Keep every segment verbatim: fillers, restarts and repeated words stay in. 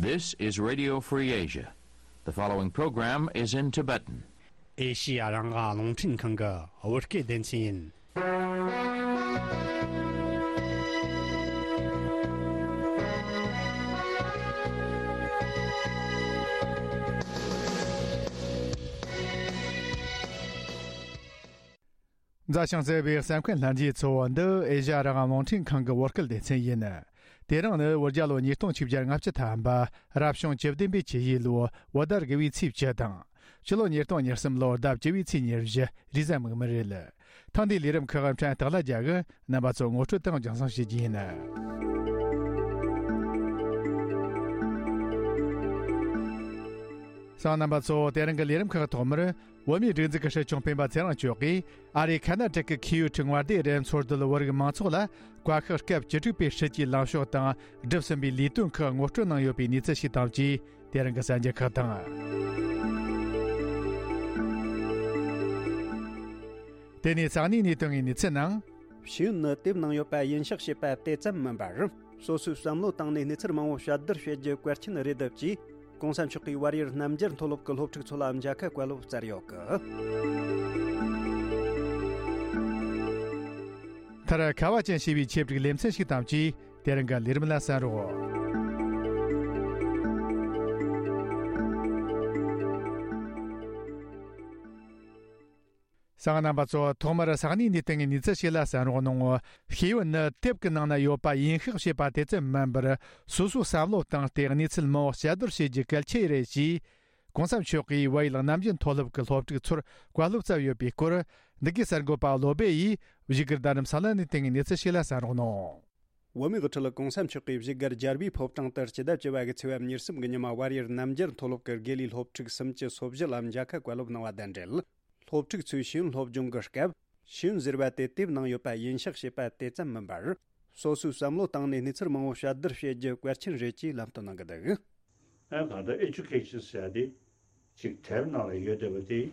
This is Radio Free Asia. The following program is in Tibetan. ཨེ་ཤི་ཡ་རང་དབང་རླུང་འཕྲིན་ཁང་གི་བོད་སྐད་སྡེ་ཚན་ཡིན། མཛའ་ཞིང་བརྩེ་བའི་གསན་མཁན་ལྷན་རྒྱས་ཚོ། འདི་ཨེ་ཤ་ཡ་རང་དབང་རླུང་འཕྲིན་ཁང་གི་བོད་སྐད་སྡེ་ཚན་ཡིན། དེ་རིང་ནི་བོད་རྒྱལ་ལོ་ཉིས་སྟོང་ཆིག་བརྒྱ་ལྔ་བཅུ་ཐམ་པ། རབ་བྱུང་བཅུ་བདུན་པའི་ཆུ་ཡོས་ལོ་བོད་ཟླ་དགུ་བའི་ཚེས་བཅུ་དང་། སྤྱི་ལོ་ཉིས་སྟོང་ཉེར་གསུམ་ལོ་ཟླ་བཅུ་བའི་ཚེས་ཉེར་བཞི། རེས་གཟའ་མིག་དམར་རེད། ཐེངས་འདིའི་ལས་རིམ་ཁག་ཕྲན་སྟག་ལྷ་རྒྱལ་གྱིས་རྣམ་པ་ཚོར་ངོ་སྤྲོད་དང་རྒྱང་སྲིང་བྱེད་རྒྱུ་ཡིན། གསན་མཁན་རྣམ་པ་ཚོ། དེ་རིང་གི་ལས་རིམ་ཁག་ཐོག་མར། བོད་མིའི་སྒྲིག་འཛུགས་ཀྱི་སྲིད་སྐྱོང་སྤེན་པ་ཚེ་རིང་མཆོག་གིས་ཨ་རིའི་ཁ་ན་ཊ་ཀ་ཁི་ཡོ་ཊི་མངའ་སྡེའི་རུ་འཚོ་སྡོད་བོད་རིགས་མང་ཚོགས་ལ་བཀའ་ཤག་སྐབས་བཅུ་དྲུག་པའི་སྲིད་ཇུས་ལངས་ཕྱོགས་དང་བསྒྲུབས་ཟིན་པའི་ལས་དོན་ཁག་ངོ་སྤྲོད་གནང་ཡོད་པའི་གནས་ཚུལ་ཞིག་དང་བཅས། དེ་རིང་གི་གསར་འགྱུར་ཁག་དང་། དེ་ནས་ས་གནས་ནས་ཐོན་པའི་གནས་ཚུལ་ནང་། ཤེས་ཡོན་ནི་དེབ་ནང་ཡོད་པ་ཡིན་ཤག་ཞེས་པ་དེ་ཙམ་མིན་པར། སོ་སོའི་བསམ་བློ་བཏང་ནས་གནས་ཚུལ་མང་བོ་དཔྱད་བསྡུར་བྱེད་རྒྱུ་གལ་ཆེན་རེད་འདུག་ཅེས། གོང་ས་མཆོག་གིས་བལ་ཡུལ་རྣམ་རྒྱལ་མཐོ་སློབ་ཀྱི་སློབ་ཕྲུག་ཚོ་ལ་མཇལ་ཁ་བཀའ་སློབ་སྩལ་ཡོད་གི། མཐར་ཁ་བ་ཅན་ཞེས་པའི་ཆེད་སྒྲིག་ལེ་ཚན་ཞིག་དང་བཅས། དེ་རིང་གི་ལས་རིམ་ལ་གསན་རོགས། གསན་མཁན་རྣམ་པ་ཚོ། ཐོག་མར་ས་གནས་ནས་བཏང་བའི་གནས་ཚུལ་ཞིག་ལ་གསན་རོགས་གནང་། ཤེས་ཡོན་ནི་དེབ་ཀྱི་ནང་ན་ཡོད་པ་ཡིན་ཤག་ཞེས་པ་དེ་ཙམ་མིན་པར། སོ་སོའི་བསམ་བློ་བཏང་སྟེ་གནས་ཚུལ་མང་བོ་དཔྱད་བསྡུར་བྱེད་རྒྱུ་གལ་ཆེ་རེད་ཅེས། གོང་ས་མཆོག་གིས་བལ་ཡུལ་རྣམ་རྒྱལ་མཐོ་སློབ་ཀྱི་སློབ་ཕྲུག་ཚོར་བཀའ་སློབ་སྩལ་ཡོད་པའི་སྐོར། འདི་གའི་གསར་འགོད་པ་བློ་སྦེ་ཡིས་བཞུགས་སྒར་རྡ་རམ་ས་ལ་ནས་བཏང་བའི་གནས་ཚུལ་ཞིག་ལ་གསན་རོགས་གནང་། བོད་མིའི་དབུ་ཁྲིད་གོང་ས་མཆོག་གིས་བཞུགས་སྒར་རྒྱལ་བའི་ཕོ་བྲང་དུ་སྤྱི་ཟླ་བཅུ་པ་གི་ཚེས་པ་ཉེར་གསུམ་གྱི་ཉི་མ་བལ་ཡུལ་རྣམ་རྒྱལ་མཐོ་སློབ་ཀྱི་དགེ་ལས་སློབ་ཕྲུག་སུམ་ཅུ་སོ་བཞི་ལ་མཇལ་ཁ་བཀའ་སློབ་གནང་བ་དང་འབྲེལ། སློབ་ཕྲུག་ཚོས་ཤེས་ཡོན་སློབ་སྦྱོང་གི་སྐབས། ཤེས་ཡོན་ཟེར་བ་དེ་དེབ་ནང་ཡོད་པ་ཡིན་ཤག་ཞེས་པ་དེ་ཙམ་མིན་པར། སོ་སོའི་བསམ་བློ་བཏང་ནས་གནས་ཚུལ་མང་བོ་དཔྱད་བསྡུར་བྱེད་རྒྱུ་གལ་ཆེན་རེད་ཅེས་ལམ་སྟོན་གནང་གི་འདུག། ཨ་གང་ལྟར་ཨེ་ཌུ་ཀེ་ཤན་ཟེར་ཡ་དེ་ཅིག་དེབ་ནང་ལ་ཡོད་བསྡད་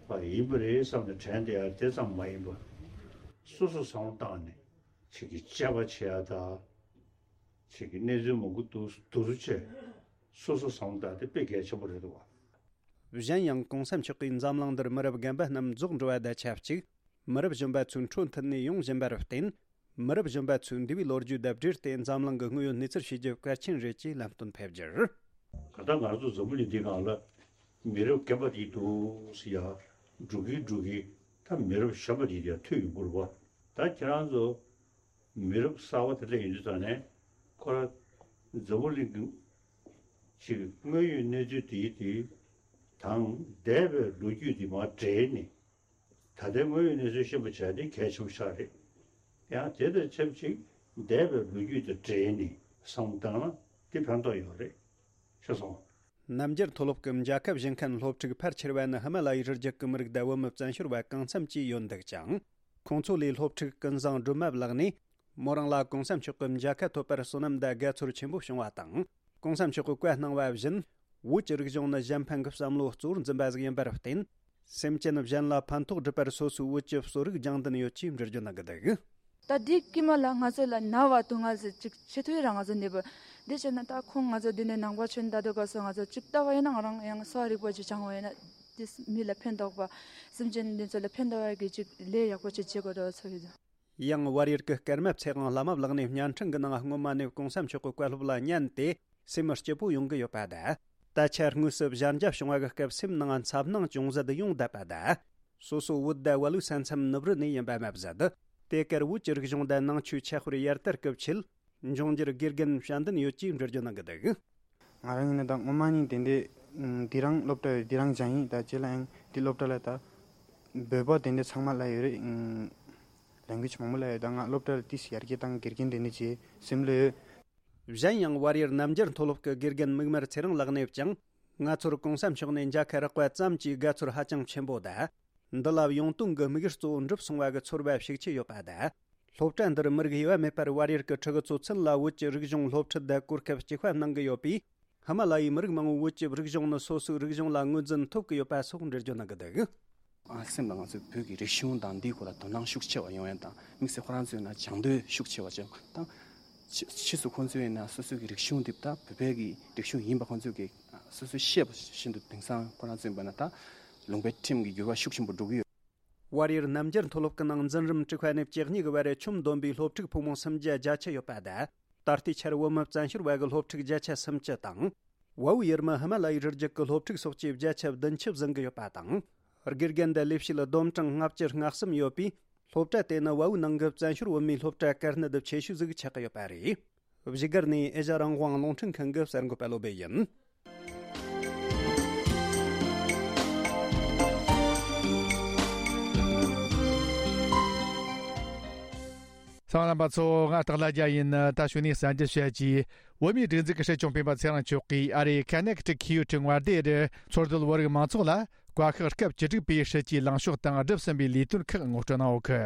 པ་དེ་བ་ཡིན་པ་རེད་བསམ་ནས་དྲན་བསྡད་ཡ་དེ་ཙམ་མ་ཡིན་པ། སོ་སོ་བསམ་བློ་བཏང་ནས་ཅིག་གི་དཔྱད་པ་བྱེད་ཡ་དང་། ཅིག་གི་གནས་ཚུལ་མང་པོ་འདུག་འདུག་བྱས་སོ་སོ་བསམ་བློ་བཏང་དེ་དཔེ་གལ་ཆེན་པོ་རེད་འདུག་བ། གཞན་ཡང་གོང་ས་མཆོག་གིས་འཛམ་གླིང་འདིར་མི་རབས་རྒན་པ་རྣམས་རྫོགས་འགྲོ་བ་དང་ཆབས་ཅིག་མི་རབས་གཞོན་པ་ཚོའི་འཕྲོ་མཐུད་ནས་ཡོང་བཞིན་པར་བརྟེན། མི་རབས་གཞོན་པ་ཚོས་འདས་པའི་ལོ་རྒྱུས་དང་འབྲེལ་ཏེ་འཛམ་གླིང་གི་དངོས་ཡོད་གནས་ཚུལ་ཤེས་རྒྱུ་གལ་ཆེན་རེད་ཅེས་ལམ་སྟོན་ཕེབས་རྒྱུར། ག་ད་ང་ཚོ་འཛམ་བུ་གླིང་འདི་སྒང་ལ་མི་རབས་རྒན་པ་དེ་འདུག་ཟེར་ཡ་འགྲོ་གིན་འགྲོ་གིན་ད་མི་རབས་གཞོན་པ་དེ་ཡར་ཐོན་ཡོང་གི་རེད་བ། ད་ཁྱེད་རང་ཚོ་མི་རབས་གསར་བ་དེ་འདྲ་ཡིན་དུས་ཙང་ནས་ཁོ་རང་འཛམ་བུ་གླིང་གི་ཅིག་དངོས་ཡོད་གནས་ཚུལ་དེ་དེ་དང་འདས་པའི་ལོ་རྒྱུས་དེ་མར་འབྲེལ་ནས། ད་ལྟའི་དངོས་ཡོད་གནས་ཚུལ་ཤེས་པ་བྱ་དེ་གལ་ཆེན་པོ་ཆགས་རེད། ཡང་དེ་དང་ཆབས་ཅིག་འདས་པའི་ལོ་རྒྱུས་དང་འབྲེལ་ནས་བསམ་བློ་བཏང་ན་དེ་ཕན་ཐོགས་ཡོད་རེད། ཤེས་སོང་། རྣམ་རྒྱལ་མཐོ་སློབ་ཀྱི་མཇལ་ཁ་བཞེས་མཁན་སློབ་ཕྲུག་ཕལ་ཆེ་བ་ནི་ཧི་མ་ལ་ཡའི་རི་རྒྱུད་ཀྱི་མི་རིགས་དང་བོད་མི་བཙན་བྱོལ་བ་གང་འཚམ་བཅས་ཡོད་འདུག་ཅིང་། ཁོང་ཚོ་ལས་སློབ་ཕྲུག་ཀུན་བཟང་སྒྲོལ་མ་ལགས་ནས། མོ་རང་ལ་གོང་ས་མཆོག་གི་མཇལ་ཁ་ཐོབ་པར་བསོད་ནམས་དང་དགའ་ཚོར་ཆེན་པོ་བྱུང་བ་དང་། གོང་ས་མཆོག་གིས་བཀའ་གནང་བ་བཞིན། བོད་ཀྱི་རིག་གཞུང་ནི་གཞན་ཕན་གྱི་བསམ་བློ་གཙོ་བོར་འཛིན་པ་ཞིག་ཡིན་པར་བརྟེན། སེམས་ཅན་གཞན་ལ་ཕན་ཐོགས་སྒྲུབ་པར་སོ་སོའི་བོད་ཀྱི་གསོ་རིག་སྦྱང་འདུན་ཡོད་ཅེས་འགྲེལ་བརྗོད་གནང་གི་འདུག། ད་འདི་ཀྱི་མ་ལ་ང་ཚོ་ལ་ན་བ་དུ་ང་ཚོ་ཅིག་ཆེ་ཐོས་རང་ང་ཚོ་ནས་བུ། འདི་བྱས་ན་ད་ཁོང་ང་ཚོ་འདི་ནས་ནང་པ་ཆོས་ད་དུ་ག་སོ་ང་ཚོ་ཅིག་ལྟ་བ་ཡིན་ན་ང་རང་ཡང་གསོ་བ་རིག་པ་ཅིག་སྦྱང་བ་ཡིན་ན། དེ་མི་ལ་ཕན་ཐོགས་པ། སེམས་ཅན་འདི་ཚོ་ལ་ཕན་ཐོགས་པ་གི་ཅིག་ལས་ཡག་པོ་ཅིག་བྱེད་དགོས་འགྲོ་ཚོ་ཡོད། ཡང་བལ་ཡུལ་གྱི་སྐར་མ་ཚེ་དབང་བླ་མ་ལགས་ནས་བརྙན་འཕྲིན་གྱི་ནང་སྔོན་མ་ནས་གོང་ས་མཆོག་གི་བཀའ་སློབ་ལ་ཉན་ཏེ་སེམས་སྐྱིད་པོ་ཡོང་གི་ཡོད་པ་དང་། ད་ཆ་དངོས་སུ་གཞན་འཇགས་བྱུང་བ་གི་སྐབས་སེམས་ནང་འཚབ་སྣང་ཅུང་ཟད་ཡོང་བསྡད་པ་དང་། སོ་སོ་བོད་དང་བལ་ལུགས་ས་མཚམས་ནུབ་རི་ནས་ཡིན་པ་མ་ཟད། དེ་གར་བོད་ཀྱི་རིག་གཞུང་དང་ནང་ཆོས་ཁྱད་དཔེར་ཡར་དར་སྐུལ་ཆེད། འབྱུང་འགྱུར་དགེ་རྒན་ཞབས་འདུན་ཡོད་ཅེས་འགྲེལ་བརྗོད་གནང་གི་འདུག། ང་རང་ཡིན་ན་ད་སྔོན་མ་ནས་དེ་འདྲའི་འདི་རང་སློབ་གྲྭ་ཡོད་འདི་རང་སྦྱངས་ཡིན། ད་རྗེས་ལ་ཡང་འདི་སློབ་གྲྭ་ལ་ད་བོད་པ་དེ་འདྲ་ཚང་མ་ལ་ཡོད་རེད། ལེང་གུ་ཡེཇ་མང་པོ་ལ་ཡོད། ད་ང་སློབ་གྲྭ་ལ་ཏིས་ཡར་རྒྱས་བཏང་དགེ་རྒན་དེ་འདྲ་བྱེད་སེམས་ལ་ཡོད། གཞན་ཡང་བལ་ཡུལ་རྣམ་རྒྱལ་མཐོ་སློབ་ཀྱི་དགེ་རྒན་མིག་དམར་ཚེ་རིང་ལགས་ནས་ཀྱང་ང་ཚོར་གོང་ས་མཆོག་ནས་མཇལ་ཁ་རག་པ་ཙམ་གྱིས་དགའ་ཚོར་ཧ་ཅང་ཆེན་པོ་དང་། འདི་ལ་ཡོང་དོན་གྱི་དམིགས་ཡུལ་གཙོ་བོ་འགྲུབ་སོང་བ་གི་ཚོར་བ་ཤུགས་ཆེ་ཡོད་པ་དང་། སློབ་གྲྭ་འདིར་མི་རིགས་དབྱེ་བ་མེད་པར་བལ་ཡུལ་གྱི་ཕྲུ་གུ་ཚོ་ཚུན་ལ་བོད་ཀྱི་རིག་གཞུང་སློབ་ཁྲིད་དང་གོ་སྐབས་གཅིག་པ་གནང་གི་ཡོད་པས། ཧི་མ་ལ་ཡའི་མི་རིགས་མང་བོའི་བོད་ཀྱི་རིག་གཞུང་ནི་སོ་སོའི་རིག་གཞུང་ལ་ངོས་འཛིན་ཐོབ་ཀྱི་ཡོད་པ་སོགས་འགྲེལ་བརྗོད་གནང་གི་འདུག། ཨ་སེམས་ལ་ང་ཚོའི་བོད་ཀྱི་རིག་གཞུང་དང་འདིའི་སྐོར་ལ་དོ་སྣང་ཤུགས་ཆེ་བ་ཡོང་ཡ་དང་། དམིགས་བསལ་ཁོ་རང་ཚོའི་ནང་སྦྱང་འདོད་ཤུགས་ཆེ་བ་བྱུང་དང་། ཕྱིས་ཕྱིས་སུ་ཁོང་ཚོས་ན་སོ་སོའི་གི་རིག་གཞུང་འདི་ད་བོད་པའི་གི་རིག་གཞུང་ཡིན་པ་ཁོང་ཚོས་གི་སོ་སོས་ཤེས་པ་བཞིན་དུ་དེང་སང་ཁོ་རང་ཚོ་ཡིན་པ་ན་ད་ལུང་པའི་ཁྲིམས་ཀྱི་འགྱུར་བ་ཤུགས་ཆེན་པོ་འགྲོ་གི་ཡོད། བལ་ཡུལ་རྣམ་རྒྱལ་མཐོ་སློབ་ཀྱི་ནང་འཛིན་རིམ་དྲུག་པ་ནས་བཅུ་གཉིས་ཀྱི་བར་ཆོམ་བསྡོམས་པའི་སློབ་ཕྲུག་ཕོ་མོ་སུམ་བརྒྱ་བརྒྱད་ཅུ་ཡོད་པ་དང་། ད་ལྟའི་ཆར་བོད་མི་བཙན་བྱོལ་བ་གི་སློབ་ཕྲུག་བརྒྱད་ཅུ་སུམ་ཅུ་དང་། བལ་པོའི་ཡུལ་མི་ཧི་མ་ལ་ཡའི་རི་རྒྱུད་ཀྱི་སློབ་ཕྲུག་སོགས་ཀྱི་བརྒྱ་ཆ་བདུན་ཅུ་ཟིན་གྱི་ཡོད་པ་དང་། དགེ་རྒན་དང་ལས་བྱེད་ལ་བསྡོམས་གྲངས་ལྔ་བཅུ་ང་གསུམ་ཡོད་པས། སློབ་གྲྭ་དེ་ནི་བལ་པོའི་ནང་གི་བཙན་བྱོལ་བོད་མིའི་སློབ་གྲྭ་དཀའ་གནད་ཆེ་ཤོས་ཟིག་ཆགས་ཀྱི་ཡོད་པ་རེད། བཞུགས་སྒར་ནས་ཨེ་ཤ་རང་དབང་རླུང་འཕྲིན་ཁང་གི་གསར་འགོད་པ་བློ་བྷེ་ཡིན། གསན་མཁན་རྣམ་པ་ཚོ། ང་སྟག་ལྷ་རྒྱལ་ཡིན། ད་གཞུག་ནས་གསར་འགྱུར་བཤད་རྒྱུ། བོད་མིའི་སྒྲིག་འཛུགས་ཀྱི་སྲིད་སྐྱོང་སྤེན་པ་ཚེ་རིང་མཆོག་གིས་ཨ་རིའི་ཁ་ནེ་ཀི་ཊི་ཁི་ཡོ་ཊི་མངའ་སྡེ་རུ་འཚོ་སྡོད་བོད་རིགས་མང་ཚོགས་ལ་བཀའ་ཤག་སྐབས་བཅུ་དྲུག་པའི་སྲིད་ཇུས་ལངས་ཕྱོགས་དང་བསྒྲུབས་ཟིན་པའི་ལས་དོན་ཁག་ངོ་སྤྲོད་གནང་ཡོད་གི།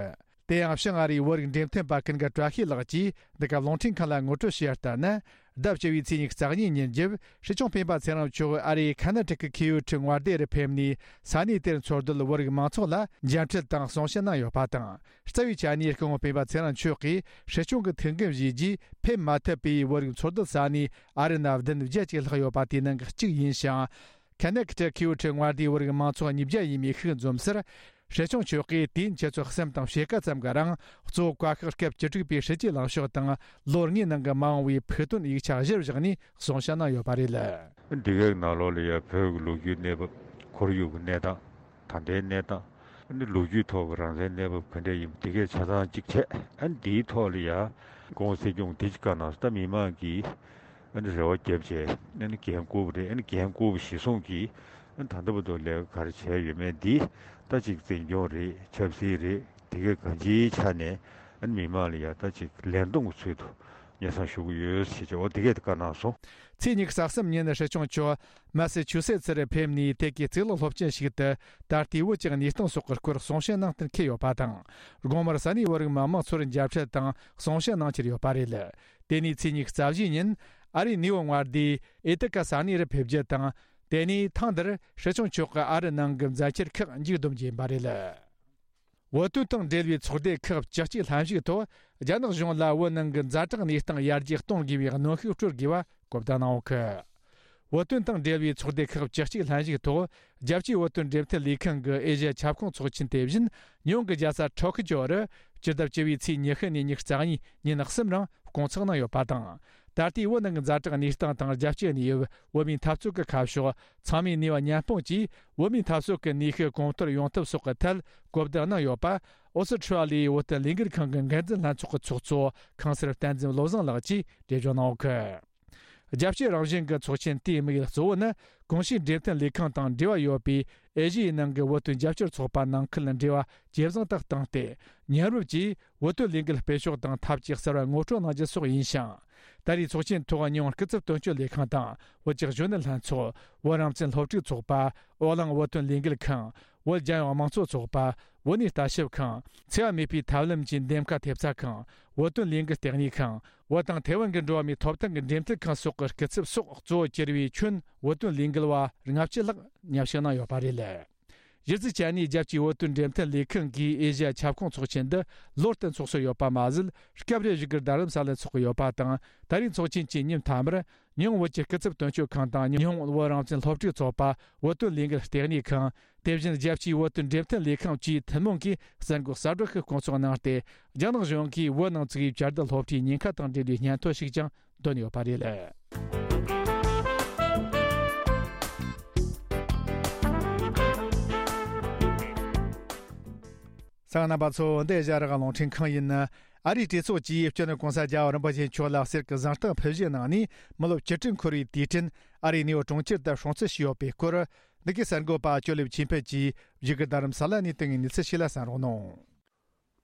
དེ་ཡང་བྱང་ཨ་རིའི་བོད་རིགས་འབྲེལ་མཐུད་པ་ཀུན་དགའ་བཀྲ་ཤིས་ལགས་ཀྱིས་འདི་ག་རླུང་འཕྲིན་ཁང་ལ་ངོ་སྤྲོད་བྱས་ཡ་ལྟར་ན། ཟླ་བཅུ་བའི་ཚེས་ཉི་ཤུ་རྩ་གཉིས་ཉིན་རྒྱབ་སྲིད་སྐྱོང་སྤེན་པ་ཚེ་རིང་མཆོག་ཨ་རིའི་ཁ་ན་ཊ་ཀ་ཁི་ཡོ་ཊི་མངའ་སྡེ་རུ་ཕེབས་ནས་ས་གནས་དེར་འཚོ་སྡོད་བོད་རིགས་མང་ཚོགས་ལ་མཇལ་འཕྲད་དང་གསུང་བཤད་གནང་ཡོད་པ་དང་། རྩ་བའི་ཆ་ནས་སྐུ་ངོ་སྤེན་པ་ཚེ་རིང་མཆོག་གིས་སྲིད་སྐྱོང་གི་ཐུགས་འགན་བཞེས་རྗེས་ཕེབས་མ་ཐུབ་པའི་བོད་རིགས་འཚོ་སྡོད་ས་གནས་ཨ་རི་ན་བདུན་བརྒྱད་ཅིག་ལྷག་ཡོད་པ་དེའི་ནང་གི་གཅིག་ཡིན་ཞིང་། ཁ་ན་ཀི་ཊ་ཁི་ཡོ་ཊི་མངའ་སྡེའི་བོད་རིགས་མང་ཚོགས་ཉིས་བརྒྱ་ཡས་མས་ཤིག་འཛོམས་སར། སྲིད་སྐྱོང་མཆོག་གིས་དུས་ཡུན་ཆུ་ཚོད་གསུམ་དང་ཕྱེད་ཀ་ཙམ་གྱི་རིང་གཙོ་བོ་བཀའ་ཤག་སྐབས་བཅུ་དྲུག་པའི་སྲིད་ཇུས་ལངས་ཕྱོགས་དང་ལོ་ལྔའི་ནང་གི་མ་འོངས་པའི་ཕུགས་འདུན་ཡིག་ཆ་གཞིར་བཞག་ནས་གསུང་བཤད་གནང་ཡོད་པ་རེད། འདི་གའི་ནང་ལོགས་ལ་ཡང་བོད་ཀྱི་ལོ་རྒྱུས་གནས་བབ། ཁོར་ཡུག་གི་གནས་སྟངས། ད་ལྟའི་གནས་སྟངས། ཨ་ནི་ལོ་རྒྱུས་ཐོག་གི་རང་བཙན་གནས་བབ་ག་འདྲ་ཡིན་པ་དེ་གའི་ཆ་ཚང་གཅིག་བྱས། ཨ་ནི་འདིའི་ཐོག་ལ་ཡང་སྐུ་ངོ་སྲིད་སྐྱོང་དེ་ཅིག་བཀའ་གནང་སོང་། ད་མི་མང་གིས་ཨ་ནི་རེ་བ་བརྒྱབ་བྱས། ཨ་ནི་འགན་བསྐུར་བ་རེད། ཨ་ནི་འགན་བསྐུར་བ་གཞིར་བཟུང་གིས་ཨ་ནི་ད་ལྟ་བར་དུ་ལས་ཀ་ག་རེ་བྱས་ཡོད་མེད་འདི་ད་ཅིག་འཛིན་སྐྱོང་རེད། ཆབ་སྲིད་རེད། དེ་གའི་གང་ཅིའི་ཆ་ནས་ཨ་ནི་མི་མང་ལ་ཡང་ད་ཅིག་ལན་གཏོང་གི་ཚུལ་དུ་སྙན་སེང་ཞུ་གི་ཡོད་ཟེར་བྱས། འོ་དེ་གས་དེ་བཀའ་གནང་སོང་། ཚེས་ཉི་ཤུ་རྩ་གསུམ་ཉིན་སྲིད་སྐྱོང་མཆོག་མ་སི་ཆུ་སེ་ཙི་རུ་ཕེབས་ནས་དེ་གའི་གཙུག་ལག་སློབ་ཆེན་ཞིག་ཏུ་ད་ལྟའི་བོད་ཀྱི་གནས་སྟངས་སོགས་ཀྱི་སྐོར་གསུང་བཤད་གནང་གཏན་འཁེལ་ཡོད་པ་དང་། དགོང་མོར་ས་གནས་བོད་རིགས་མི་མང་ཚོར་མཇལ་འཕྲད་དང་གསུང་བཤད་གནང་འཆར་ཡོད་པ་རེད། དེ་ནས་ཚེས་ཉི་ཤུ་རྩ་བཞི་ཉིན་ཨ་རིའི་ནིའུ་ཡོག་མངའ་སྡེའི་ཨེ་ཏི་ཀ་ས་གནས་རུ་ཕེབས་རྒྱུ་དང་། དེ་ནས་ཐེངས་འདིར་སྲིད་སྐྱོང་མཆོག་གི་ཨ་རི་ནང་གི་མཛད་འཆར་ཁག་མཇུག་བསྡོམས་རྒྱུ་ཡིན་པ་རེད། བོད་དོན་དང་འབྲེལ་བའི་ཚོགས་སྡེ་ཁག་བཅུ་གཅིག་ལྷན་ཞུགས་ཐོག་རྒྱ་ནག་གཞུང་ལ་བོད་ནང་གི་ཛ་དྲག་གནས་སྟངས་ཡར་རྒྱས་གཏོང་དགོས་པའི་གནོན་ཤུགས་སྤྲོད་དགོས་པ་གོ་བརྡ་གནང་ཡོད་གི། བོད་དོན་དང་འབྲེལ་བའི་ཚོགས་སྡེ་ཁག་བཅུ་གཅིག་ལྷན་ཞུགས་ཐོག་རྒྱལ་སྤྱིའི་བོད་དོན་འབྲེལ་མཐུད་ལས་ཁང་གི་ཨེ་ཤ་ཡ་ཁྱབ་ཁོངས་ཚོགས་ཆེན་དེ་བཞིན་ཉི་ཧོང་གི་རྒྱལ་ས་ཊོ་ཀི་ཅོ་རུ་སྤྱི་ཟླ་བཅུ་བའི་ཚེས་ཉི་ཤུ་ནས་ཉི་ཤུ་རྩ་གཉིས་ཉིན་གསུམ་རིང་སྐོང་ཚོགས་གནང་ཡོད་པ་དང་། ད་ལྟའི་བོད་ནང་གི་ཛ་དྲག་གནས་སྟངས་དང་རྒྱལ་སྤྱིའི་གནས་བབ། བོད་མིའི་འཐབ་རྩོད་ཀྱི་ཁ་ཕྱོགས། ཚང་མས་ནུས་པ་མཉམ་སྤུངས་ཀྱིས་བོད་མིའི་འཐབ་རྩོད་ཀྱི་ནུས་ཤུགས་གོང་མཐོར་ཡོང་ཐབས་སོགས་ཀྱི་ཐད་གོ་བསྡུར་གནང་ཡོད་པ། ཨོ་སི་ཁྲུ་ལི་ཡའི་བོད་དོན་ལས་འགུལ་ཁང་གི་འགན་འཛིན་ལྷན་ཚོགས་ཀྱི་ཚོགས་གཙོ་ཁང་གསར་བསྟན་འཛིན་བློ་བཟང་ལགས་ཀྱིས་འགྲེལ་བརྗོད་གནང་ཡོད་གི། རྒྱལ་སྤྱི་རང་བཞིན་གྱི་ཚོགས་ཆེན་དེའི་དམིགས་ཡུལ་གཙོ་བོ་ནི། གོང་ཞུས་འབྲེལ་མཐུན་ལས་ཁང་དང་འབྲེལ་བ་ཡོད་པའི་ཨེ་ཤི་ཡའི་ནང་གི་བོད་དོན་རྒྱབ་སྐྱོར་ཚོགས་པ་ནང་ཁུལ་འབྲེལ་བ་ཇེ་བཟང་དུ་བཏང་སྟེ། མཉམ་རུབ་ཀྱིས་བོད་དོན་ལས་འགུལ་སྤེལ་ཕྱོགས་དང་ཐབས་ཇུས་གསར་བ་ངོ་སྤྲོད་གནང་རྒྱུ་སོགས་ཡིན་ཞིང་། ད་རེས་ཚོགས་ཆེན་ཐོག་ཉི་ཧོང་སྐུ་ཚབ་དོན་གཅོད་ལས་ཁང་དང་བོད་ཀྱི་གཞོན་ནུ་ལྷན་ཚོགས། བོད་རང་བཙན་སློབ་ཕྲུག་ཚོགས་པ། བོད་གླིང་བོད་དོན་ལས་འགུལ་ཁང་། བོད་རྒྱལ་ཡོངས་དམངས་གཙོ་ཚོགས་པ། བོད་གནས་ལྟ་ཞིབ་ཁང་། འཚེ་བ་མེད་པའི་ཐབས་ལམ་གྱི་འདེམས་ཀ་ཐེབས་རྩ་ཁང་། བོད་དོན་ལས་འགུལ་ལྟེ་གནས་ཁང་། བོད་དང་ཐའེ་ཝན་གྱི་འགྲོ་བ་མིའི་ཐོབ་ཐང་གི་འབྲེལ་མཐུད་ཁང་སོགས་ཀྱི་སྐུ་ཚབ་སོགས་གཙོ་བོ་གྱུར་བའི་ཁྱོན་བོད་དོན་ལས་འགུལ་བ་ལྔ་བཅུ་ལྷག་མཉམ་ཞུགས་གནང་ཡོད་པ་རེད། གཞི་རྩའི་ཆ་ནས་རྒྱལ་སྤྱིའི་བོད་དོན་འབྲེལ་མཐུད་ལས་ཁང་གིས་ཨེ་ཤི་ཡ་ཁྱབ་ཁོངས་ཚོགས་ཆེན་འདི་ལོ་བསྟར་འཚོགས་སྲོལ་ཡོད་པ་མ་ཟད། སྐབས་རེ་བཞུགས་སྒར་རྡ་རམ་ས་ལར་འཚོགས་ཀྱི་ཡོད་པ་དང་། ད་རེས་ཚོགས་ཆེན་གྱི་ཉིན་མཐའ་མར་ཉི་ཧོང་བོད་ཀྱི་སྐུ་ཚབ་དོན་གཅོད་ཁང་དང་ཉི་ཧོང་བོད་རང་བཙན་སློབ་ཕྲུག་ཚོགས་པ། བོད་དོན་ལས་འགུལ་ལྟེ་གནས་ཁང་། དེ་བཞིན་རྒྱལ་སྤྱིའི་བོད་དོན་འབྲེལ་མཐུད་ལས་ཁང་བཅས་ཐུན་མོང་གིས་གསར་འགོད་གསལ་བསྒྲགས་ཤིག་སྐོང་ཚོགས་གནང་སྟེ། རྒྱ་ནག་གཞུང་གིས་བོད་ནང་བཙུགས་པའི་བཅའ་སྡོད་སློབ་གྲྭའི་ཉེན་ཁ་དང་འབྲེལ་བའི་སྙན་ཐོ་ཞིག་ཀྱང་འདོན་ཡོད་པ་རེད། གསན་མཁན་རྣམ་པ་ཚོ། འདི་ཨེ་ཤ་ཡ་རང་དབང་རླུང་འཕྲིན་ཁང་ཡིན། ཨ་རིའི་གྲོས་ཚོགས་ཀྱིས་སྤྱི་ནོར་གོང་ས་རྒྱལ་བ་རིན་པོ་ཆེ་མཆོག་ལ་གསེར་གྱི་གཟེངས་རྟགས་ཕུལ་བཞེས་གནང་ནས། མི་ལོ་བཅུ་དྲུག་འཁོར་བའི་དུས་དྲན་ཨ་རིའི་ནིའུ་ཡོག་གྲོང་ཁྱེར་དུ་སྲུང་བརྩི་ཞུས་ཡོད་པའི་སྐོར། འདི་གའི་གསར་འགོད་པ་ཅོ་ལེབ་ཆོས་འཕེལ་གྱིས་བཞུགས་སྒར་རྡ་རམ་ས་ལ་ནས་བཏང་བའི་གནས་ཚུལ་ཞིག་ལ་གསན་རོགས་གནང་།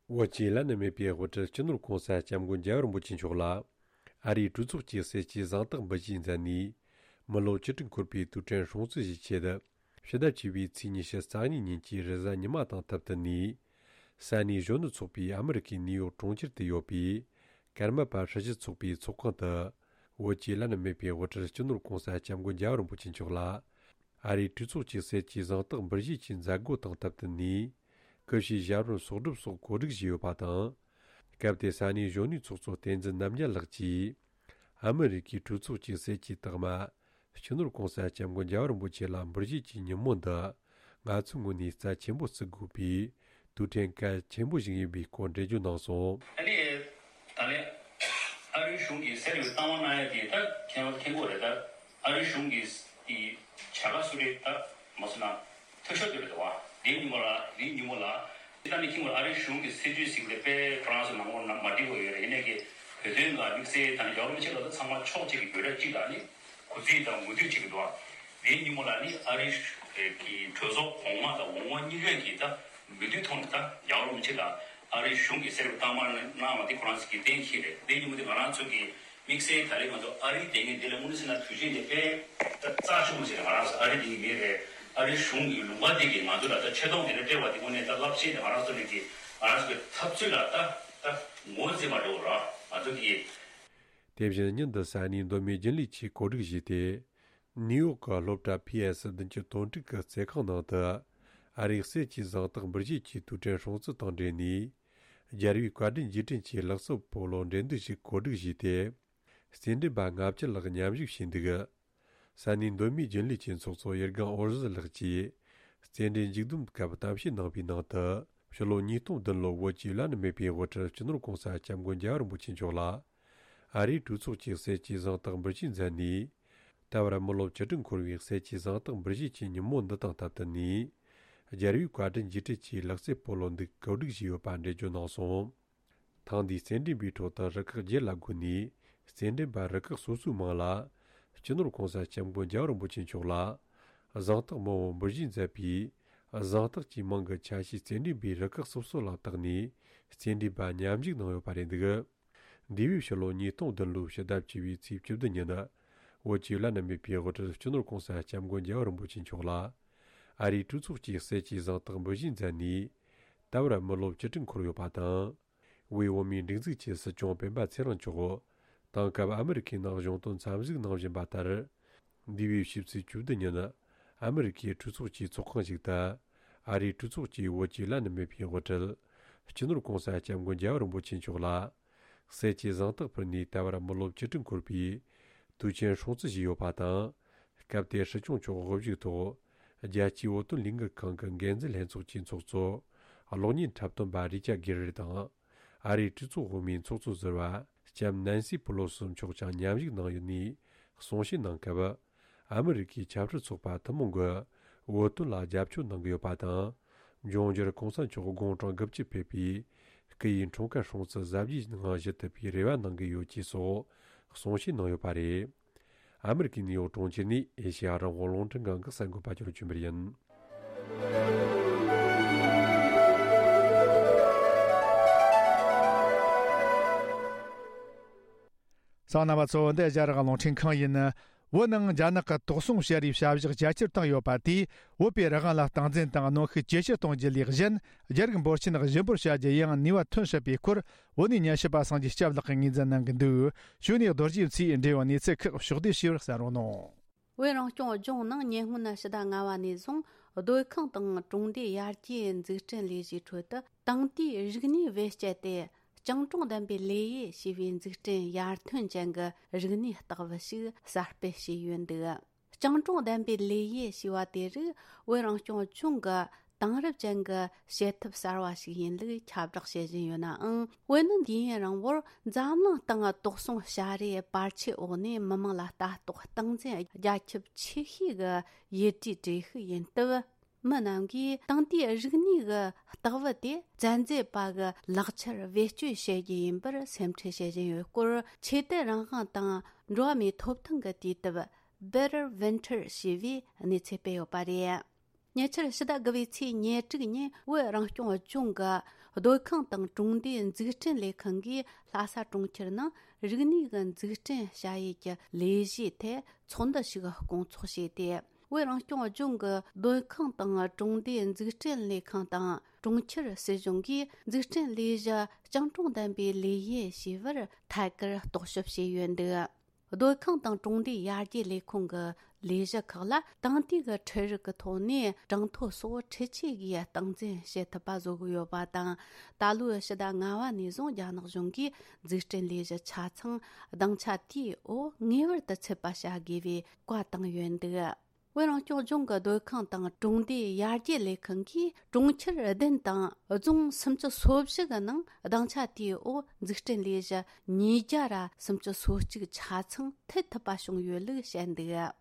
བོད་ཀྱི་བླ་ན་མེད་པའི་དབུ་ཁྲིད་སྤྱི་ནོར་གོང་ས་སྐྱབས་མགོན་རྒྱལ་བ་རིན་པོ་ཆེ་མཆོག་ལ་ཨ་རིའི་གྲོས་ཚོགས་ཀྱི་གསེར་གྱི་གཟེངས་རྟགས་འབུལ་བཞེས་མཛད་ནས། མི་ལོ་བཅུ་དྲུག་འཁོར་བའི་དུས་དྲན་སྲུང་བརྩི་ཞུ་ཆེད། ཕྱི་ཟླ་བཅུ་པའི་ཚེས་ཉི་ཤུ་རྩ་གཉིས་ཉིན་གྱི་རེས་གཟའ་ཉི་མ་དང་སྟབས་བསྟུན་ནས། ས་གནས་གཞོན་ནུ་ཚོགས་པའི་ཨ་མི་རི་ཀའི་ནིའུ་ཡོག་གྲོང་ཁྱེར་དུ་ཡོད་པའི་ཀརྨ་པ་སྲི་ཞུ་ཚོགས་པའི་ཚོགས་ཁང་དུ། བོད་ཀྱི་བླ་ན་མེད་པའི་དབུ་ཁྲིད་སྤྱི་ནོར་གོང་ས་སྐྱབས་མགོན་རྒྱལ་བ་རིན་པོ་ཆེ་མཆོག་ལ། ཨ་རིའི་གྲོས་ཚོགས་ཀྱི་གསེར་གྱི་གཟེངས་རྟགས་འབུལ་བཞེས་ཀྱི་མཛད་སྒོ་དང་སྟབས་བསྟུན་ནས། སྐུ་ཞབས་ཞབས་བརྟན་གསོག་སྒྲུབ་སོགས་གོ་སྒྲིག་བྱས་ཡོད་པ་དང་། སྐབས་དེར་ས་གནས་གཞོན་ནུའི་ཚོགས་གཙོ་བསྟན་འཛིན་རྣམ་རྒྱལ་ལགས་ཀྱིས། ཨ་མི་རི་ཀའི་གྲོས་ཚོགས་ཀྱི་གསེར་གྱི་རྟགས་མ། སྤྱི་ནོར་༸གོང་ས་༸སྐྱབས་མགོན་རྒྱལ་བ་རིན་པོ་ཆེ་ལ་འབུལ་བཞེས་ཀྱི་ཉིན་མོ་འདི། ང་ཚོའི་ངོས་ནས་རྩ་ཆེན་པོ་བརྩི་དགོས་པའི་དུས་དྲན་གལ་ཆེན་པོ་ཞིག་ཡིན་པའི་སྐོར་འགྲེལ་བརྗོད་གནང་སོང་། ཨ་ནི། ད་ལན། ཨ་རིའི་གཞུང་གིས་གསེར་གྱི་རྟགས་མ་གནང་ཡ་དེ་ད་མཁྱེན་མཁྱེན་གྱི་ཡོད་རེད། ད་ཨ་རིའི་གཞུང་གིས་དེ་བྱ་དགའ་སུ་རེད། ད་མ་སུ་ན་ཐུགས་ཤོར་དེ་རེད་དོ། དེའི་ཉིན་མོ་ལ་དེའི་ཉིན་མོ་ལ་ད་ནི་མཁྱེན་གྱི་ཡོད་རེད། ཨ་རིའི་གཞུང་གི་སྲིད་ཇུས་ཟིག་ལས་དཔེ་ཁོ་རང་ཚོ་ནང་ལོགས་ན་མ་འགྲིག་པ་ཡོད་རེད། ཡིན་ནའི་གི་བོད་དོན་ལ་དམིགས་བསལ་དང་ཡོ་རོབ་ཕྱོགས་ལ་ད་ཚང་མ་ཕྱོགས་གཅིག་གི་འབོད་སྒྲ་གཅིག་དང་ནི་གུས་བརྩི་དང་ངོ་འདུད་བྱེད་ཀྱི་འདུག། དེའི་ཉིན་མོ་ལ་ནི་ཨ་རིའི་གི་གྲོས་ཚོགས་གོང་མ་དང་འོག་མ་གཉིས་ཀས་ཀྱིས་ད་མོས་མཐུན་ཐོག་ནས་ད་རྒྱལ་བ་རིན་པོ་ཆེ་ལ་ཨ་རིའི་གཞུང་གིས་གསེར་གྱི་རྟགས་མ་གནང་བ་དེ་ཁོ་རང་ཚོ་གིས་གཏན་འཁེལ་རེད། དེའི་ཉིན་མོ་དེ་ང་རང་ཚོ་གིས་དམིགས་བསལ་ད་ལན་ང་ཚོ་ཨ་རིའི་དེ་ངས་འདི་ལ་དངོས་གནས་བྱས་ན་དུས་ཆེན་དེ་དཔེ་ད་རྩ་ཆེན་པོ་ཞིག་རེད། ང་རང་ཚོ་ཨ་རིའི་དེ་ངས་མིན་རེད། ཨ་རིའི་གཞུང་གི་ལུང་པ་དེ་གིས་ང་ཚོ་ལ་ད་ཆེ་མཐོང་དེ་འདྲ་སྤྲད་པ་དེ་དངོས་གནས་ད་རླབས་ཆེན་དེ་ང་རང་ཚོ་ལ་གི་ང་རང་ཚོ་གི་འཐབ་རྩོད་ལ་ད་ད་ངོས་འཛིན་པ་འགྲོ་ར་ང་ཚོ་གི། དེ་བཞིན་ཉིན་འདི་ས་གནས་མདོ་སྨད་རྒྱུན་ལས་ཆེས་གོ་སྒྲིག་བྱས་ཏེ། ནིའུ་ཡོག་གི་སློབ་གྲྭ་ཕི་ཨེ་སི་བདུན་ཅུ་དོན་དྲུག་གི་རྩེད་ཁང་ནང་དུ། ཨ་རིའི་གསེར་གྱི་གཟེངས་རྟགས་འབུལ་བཞེས་ཀྱི་དུས་དྲན་སྲུང་བརྩི་དང་འབྲེལ་ནས། རྒྱལ་བའི་བཀའ་དྲིན་རྗེས་དྲན་གྱི་ལག་རྩེད་སྤོ་ལོ་འགྲན་བསྡུར་ཞིག་གོ་སྒྲིག་བྱས་ཏེ། རྩེད་འགྲན་པ་ལྔ་བཅུ་ལྷག་མཉམ་ཞུགས་བྱས་འདུག། ས་གནས་མདོ་སྨད་རྒྱུན་ལས་ཀྱི་ཚོགས་གཙོ་ཡུལ་སྒང་འོར་ཟི་ལགས་ཀྱིས། རྩེད་འགྲན་མཇུག་བསྡོམས་སྐབས་གཏམ་བཤད་གནང་བའི་ནང་དུ། ཕྱི་ལོ་ཉིས་སྟོང་བདུན་ལོར་བོད་ཀྱི་བླ་ན་མེད་པའི་དབུ་ཁྲིད་སྤྱི་ནོར་༸གོང་ས་༸སྐྱབས་མགོན་རྒྱལ་བ་རིན་པོ་ཆེ་མཆོག་ལ། ཨ་རིའི་གྲོས་ཚོགས་ཀྱི་གསེར་གྱི་གཟེངས་རྟགས་འབུལ་བཞེས་མཛད་ནས། ད་བར་མི་ལོ་བཅུ་དྲུག་འཁོར་བའི་གསེར་གྱི་གཟེངས་རྟགས་འབུལ་བཞེས་ཀྱི་ཉིན་མོ་འདི་དང་སྟབས་བསྟུན་ནས། རྒྱལ་བའི་བཀའ་དྲིན་རྗེས་དྲན་གྱི་ལག་རྩེད་སྤོ་ལོ་འདི་གོ་སྒྲིག་བྱས་ཡོད་པ་འགྲེལ་བརྗོད་གནང་སོང་། ཐེངས་འདིའི་རྩེད་འགྲན་པའི་ཁྲོད་དུ་རུ་ཁག་བརྒྱད་ལ་བགོས་ནས། རྩེད་འགྲན་པ་རུ་ཁག་སོ་སོའི་མིང་ལ། སྤྱི་ནོར་༸གོང་ས་༸སྐྱབས་མགོན་རྒྱལ་བ་རིན་པོ་ཆེ་མཆོག་ལ། གཟེངས་རྟགས་མང་བོ་འབུལ་བཞེས་མཛད་པའི། གཟེངས་རྟགས་ཀྱི་མིང་གི་ཆ་ཤས་རྩེད་འགྲན་པའི་རུ་ཁག་སོ་སོ་ལ་བཏགས་ནས། རྩེད་འགྲན་པ་མཉམ་ཞུགས་གནང་ཡོད་པ་རེད་འདུག། འདས་པའི་ཕྱི་ལོ་ཉིས་སྟོང་བདུན་ལོའི་ཕྱི་ཟླ་བཅུ་པའི་ཚེས་བཅུ་བདུན་ཉིན། བོད་ཀྱི་བླ་ན་མེད་པའི་དབུ་ཁྲིད་སྤྱི་ནོར་༸གོང་ས་༸སྐྱབས་མགོན་རྒྱལ་བ་རིན་པོ་ཆེ་མཆོག་ལ། ཨ་རིའི་གྲོས་ཚོགས་ཀྱི་གསེར་གྱི་གཟེངས་རྟགས་འབུལ་བཞེས་མཛད་ནས། ད་བར་མི་ལོ་བཅུ་དྲུག་འཁོར་ཡོད་པ་དང་། དབུས་བོད་མིའི་སྒྲིག་འཛུགས་ཀྱི་སྲིད་སྐྱོང་སྤེན་པ་ཚེ་རིང་མཆོག་དེང་སྐབས་ཨ་མི་རི་ཁའི་ནང་གཞུང་དོན་འཚམས་གཟིགས་གནང་བཞིན་པ་ལྟར། འདས་པའི་ཕྱི་ཚེས་བཅུ་བདུན་ཉིན། ཨ་མི་རི་ཁའི་གྲོས་ཚོགས་ཀྱི་ཚོགས་ཁང་ཞིག་ཏུ། ཨ་རིའི་གྲོས་ཚོགས་ཀྱི་བོད་ཀྱི་བླ་ན་མེད་པའི་དབུ་ཁྲིད། སྤྱི་ནོར་༸གོང་ས་༸སྐྱབས་མགོན་རྒྱལ་བ་རིན་པོ་ཆེ་མཆོག་ལ། གསེར་གྱི་གཟེངས་རྟགས་ཕུལ་ནས་ད་བར་མི་ལོ་བཅུ་དྲུག་འཁོར་བའི་དུས་ཆེན་སྲུང་བརྩི་བྱས་ཡོད་པ་དང་། སྐབས་དེར་སྲིད་སྐྱོང་མཆོག་དབུ་བཞུགས་ཐོག་རྒྱལ་སྤྱིའི་བོད་དོན་ལས་འགུལ་ཁང་གི་འགན་འཛིན་ལྷན་ཚོགས་ཀྱི་ཚོགས་གཙོ། གློག་བརྙན་འཁྲབ་སྟོན་པ་རི་ཅར་གྷེ་རེ་དང་། ཨ་རིའི་གྲོས་ཚོགས་འོག་མའི་ཚོགས་གཙོ་ཟུར་པ་ལྕམ་ནན་སི་པུ་ལོ་སི་མཆོག་ཀྱང་མཉམ་ཞུགས་གནང་ཡོད་ནས་གསུང་བཤད་གནང་སྐབས། ཨ་མི་རི་ཀའི་ཆབ་སྲིད་ཚོགས་པ་ཐུན་མོང་གིས་བོད་དོན་ལ་རྒྱབ་སྐྱོར་གནང་གི་ཡོད་པ་དང་། འབྱུང་འགྱུར་གོང་ས་མཆོག་དགུང་གྲངས་དགུ་བཅུ་ཕེབས་པའི་སྐུ་ཡི་འཁྲུངས་སྐར་སྲུང་བརྩི་གཟབ་རྒྱས་ངང་ཞུ་ཐུབ་པའི་རེ་བ་གནང་གི་ཡོད་ཅེས་སོགས་གསུང་བཤད་གནང་ཡོད་པ་རེད། ཨ་མི་རི་ཀའི་ནིའུ་ཡོག་གྲོང་ཁྱེར་ནས་ཨེ་ཤེ་ཡ་རང་དབང་རླུང་འཕྲིན་ཁང་གི་གསར་འགོད་པ་ཅོ་ལོ་ཆོས་འཕེལ་ཡིན། གསན་མཁན་རྣམ་པ་ཚོ། འདི་རྒྱ་རིགས་རླུང་འཕྲིན་ཁང་ཡིན། བོད་ནང་རྒྱ་ནག་གི་དོགས་ཟོན་བྱ་རེས་བྱ་གཞག་རྒྱ་ཆེར་བཏང་ཡོད་པ་དེས། བོད་པའི་རང་དབང་ལ་སྟངས་འཛིན་དང་གནོན་ཤུགས་ཇེ་ཆེར་གཏོང་རྒྱུ་ལས་གཞན། རྒྱ་རིགས་འབོར་ཆེན་གཞི་འབོར་བྱ་རྒྱུ་ཡང་ནུས་པ་ཐོན་སྲིད་པའི་སྐོར། བོད་ནས་ཉན་ཞིབ་པ་སངས་རྒྱས་སྐྱབས་ལགས་ཀྱིས་ངོས་འཛིན་གནང་གི་འདུག། གཞུག་ནས་རྡོ་རྗེ་མཚོས་འབྲེལ་ཡོད་གནས་ཚུལ་ཁག་ཕྱོགས་བསྡུས་ཞུས་པར་གསན་རོགས་གནང་། བོད་རང་སྐྱོང་ལྗོངས་ནང་ཉེ་སྔོན་ཕྱི་ཟླ་ལྔ་པ་ནས་བཟུང་སྡོད་ཁང་དང་གྲོང་སྡེ་ཡར་རྒྱས་འཛུགས་སྐྲུན་ལས་གཞིའི་ཁྲོད་དུ། དེང་དུས་རིག་གནས་བེད་སྤྱད་དེ་སྤྱང་གྲུང་ལྡན་པའི་ལས་གཡས་ཞེས་པའི་འཛུགས་སྐྲུན་ཡར་ཐོན་ཅན་གྱི་རིག་གནས་རྟགས་བུ་ཞིག་གསར་སྤེལ་བྱས་ཡོད་འདུག། སྤྱང་གྲུང་ལྡན་པའི་ལས་གཡས་ཞེས་པ་དེ་རིགས་བོད་རང་སྐྱོང་ལྗོངས་ཀྱི་དེང་རབས་ཅན་གྱི་བྱེད་ཐབས་གསར་བ་ཞིག་ཡིན་ལུགས་ཁྱབ་བསྒྲགས་བྱེད་བཞིན་ཡོད་ནའང་། བོད་ནི་དུས་ཡུན་རིང་པོར་འཛམ་གླིང་སྟེང་དོགས་ཟོན་བྱ་རེས་བར་ཆད་འོག་ནས་མི་དམངས་ལ་ལྟ་རྟོག་སྟངས་འཛིན་རྒྱ་ཁྱབ་ཆེ་ཤོས་ཀྱི་ཡུལ་གྲུའི་གྲས་ཤིག་ཡིན་སྟབས། མི་རྣམས་ཀྱིས་དེང་དུས་རིག་གནས་ཀྱི་རྟགས་བུ་དེ་བཙན་འཛུལ་པ་གི་ལག་ཆར་བེད་སྤྱོད་བྱེད་རྒྱུ་ཡིན་པར་སེམས་ཁྲལ་བྱེད་བཞིན་ཡོད་སྐོར། ཆོས་དད་རང་དབང་དང་འགྲོ་བ་མིའི་ཐོབ་ཐང་གི་དུས་དེབ་Better Winter ཞེས་པའི་གནས་ཚུལ་སྤེལ་ཡོད་པ་རེད། ཉེ་ཆར་ཕྱི་ཟླ་དགུ་པའི་ཚེས་ཉེར་དྲུག་ཉིན་བོད་རང་སྐྱོང་ལྗོངས་ཀྱི་སྡོད་ཁང་དང་གྲོང་སྡེའི་འཛུགས་སྐྲུན་ལས་ཁང་གིས་ལྷ་ས་གྲོང་ཁྱེར་ནང་རིག་གནས་ཀྱི་འཛུགས་སྐྲུན་བྱ་ཡུལ་གྱི་ལས་གཞིའི་ཐད་ཚོགས་འདུ་ཞིག་སྐོང་ཚོགས་བྱས་ཏེ། བོད་རང་སྐྱོང་ལྗོངས་ཀྱི་སྡོད་ཁང་དང་གྲོང་སྡེའི་འཛུགས་སྐྲུན་ལས་ཁང་དང་གྲོང་ཁྱེར་སྲིད་གཞུང་གིས་འཛུགས་སྐྲུན་ལས་གཞི་སྤྱང་གྲུང་ལྡན་པའི་ལས་གཡས་ཞེས་པར་ཐད་ཀར་རྟོག་ཞིབ་བྱས་ཡོད་འདུག། སྡོད་ཁང་དང་གྲོང་སྡེའི་ཡར་རྒྱས་ལས་ཁུངས་ཀྱི་ལས་གཞི་ཁག་ལ་དེང་དུས་ཀྱི་འཕྲུལ་རིག་གི་ཐོག་ནས་གྲངས་ཐོ་སོགས་འཕྲུལ་ཆས་ཀྱིས་སྟངས་འཛིན་བྱེད་ཐུབ་པ་བཟོ་གི་ཡོད་པ་དང་། ད་ལོའི་ཕྱི་ཟླ་ལྔ་བ་ནས་བཟུང་རྒྱ་ནག་གཞུང་གིས་འཛུགས་སྐྲུན་ལས་གཞི་ཆ་ཚང་སྡིངས་ཆ་དེའི་འོག་ངེས་པར་དུ་ཚུད་པ་བྱ་དགོས་པའི་བཀའ་བཏང་ཡོད་འདུག། བོད་རང་སྐྱོང་ལྗོངས་ཀྱི་སྡོད་ཁང་དང་གྲོང་སྡེའི་ཡར་རྒྱས་ལས་ཁུངས་ཀྱིས་གྲོང་ཁྱེར་བདུན་དང་རྫོང་སུམ་ཅུ་སོ་བཞི་གི་ནང་སྡིངས་ཆ་དེའི་འོག་འཛུགས་སྐྲུན་ལས་གཞི་ཉིས་བརྒྱ་ར་སུམ་ཅུ་སོ་གཅིག་ཆ་ཚང་མཐུད་ཐུབ་པ་བྱུང་ཡོད་ལུགས་བཤད་འདུག།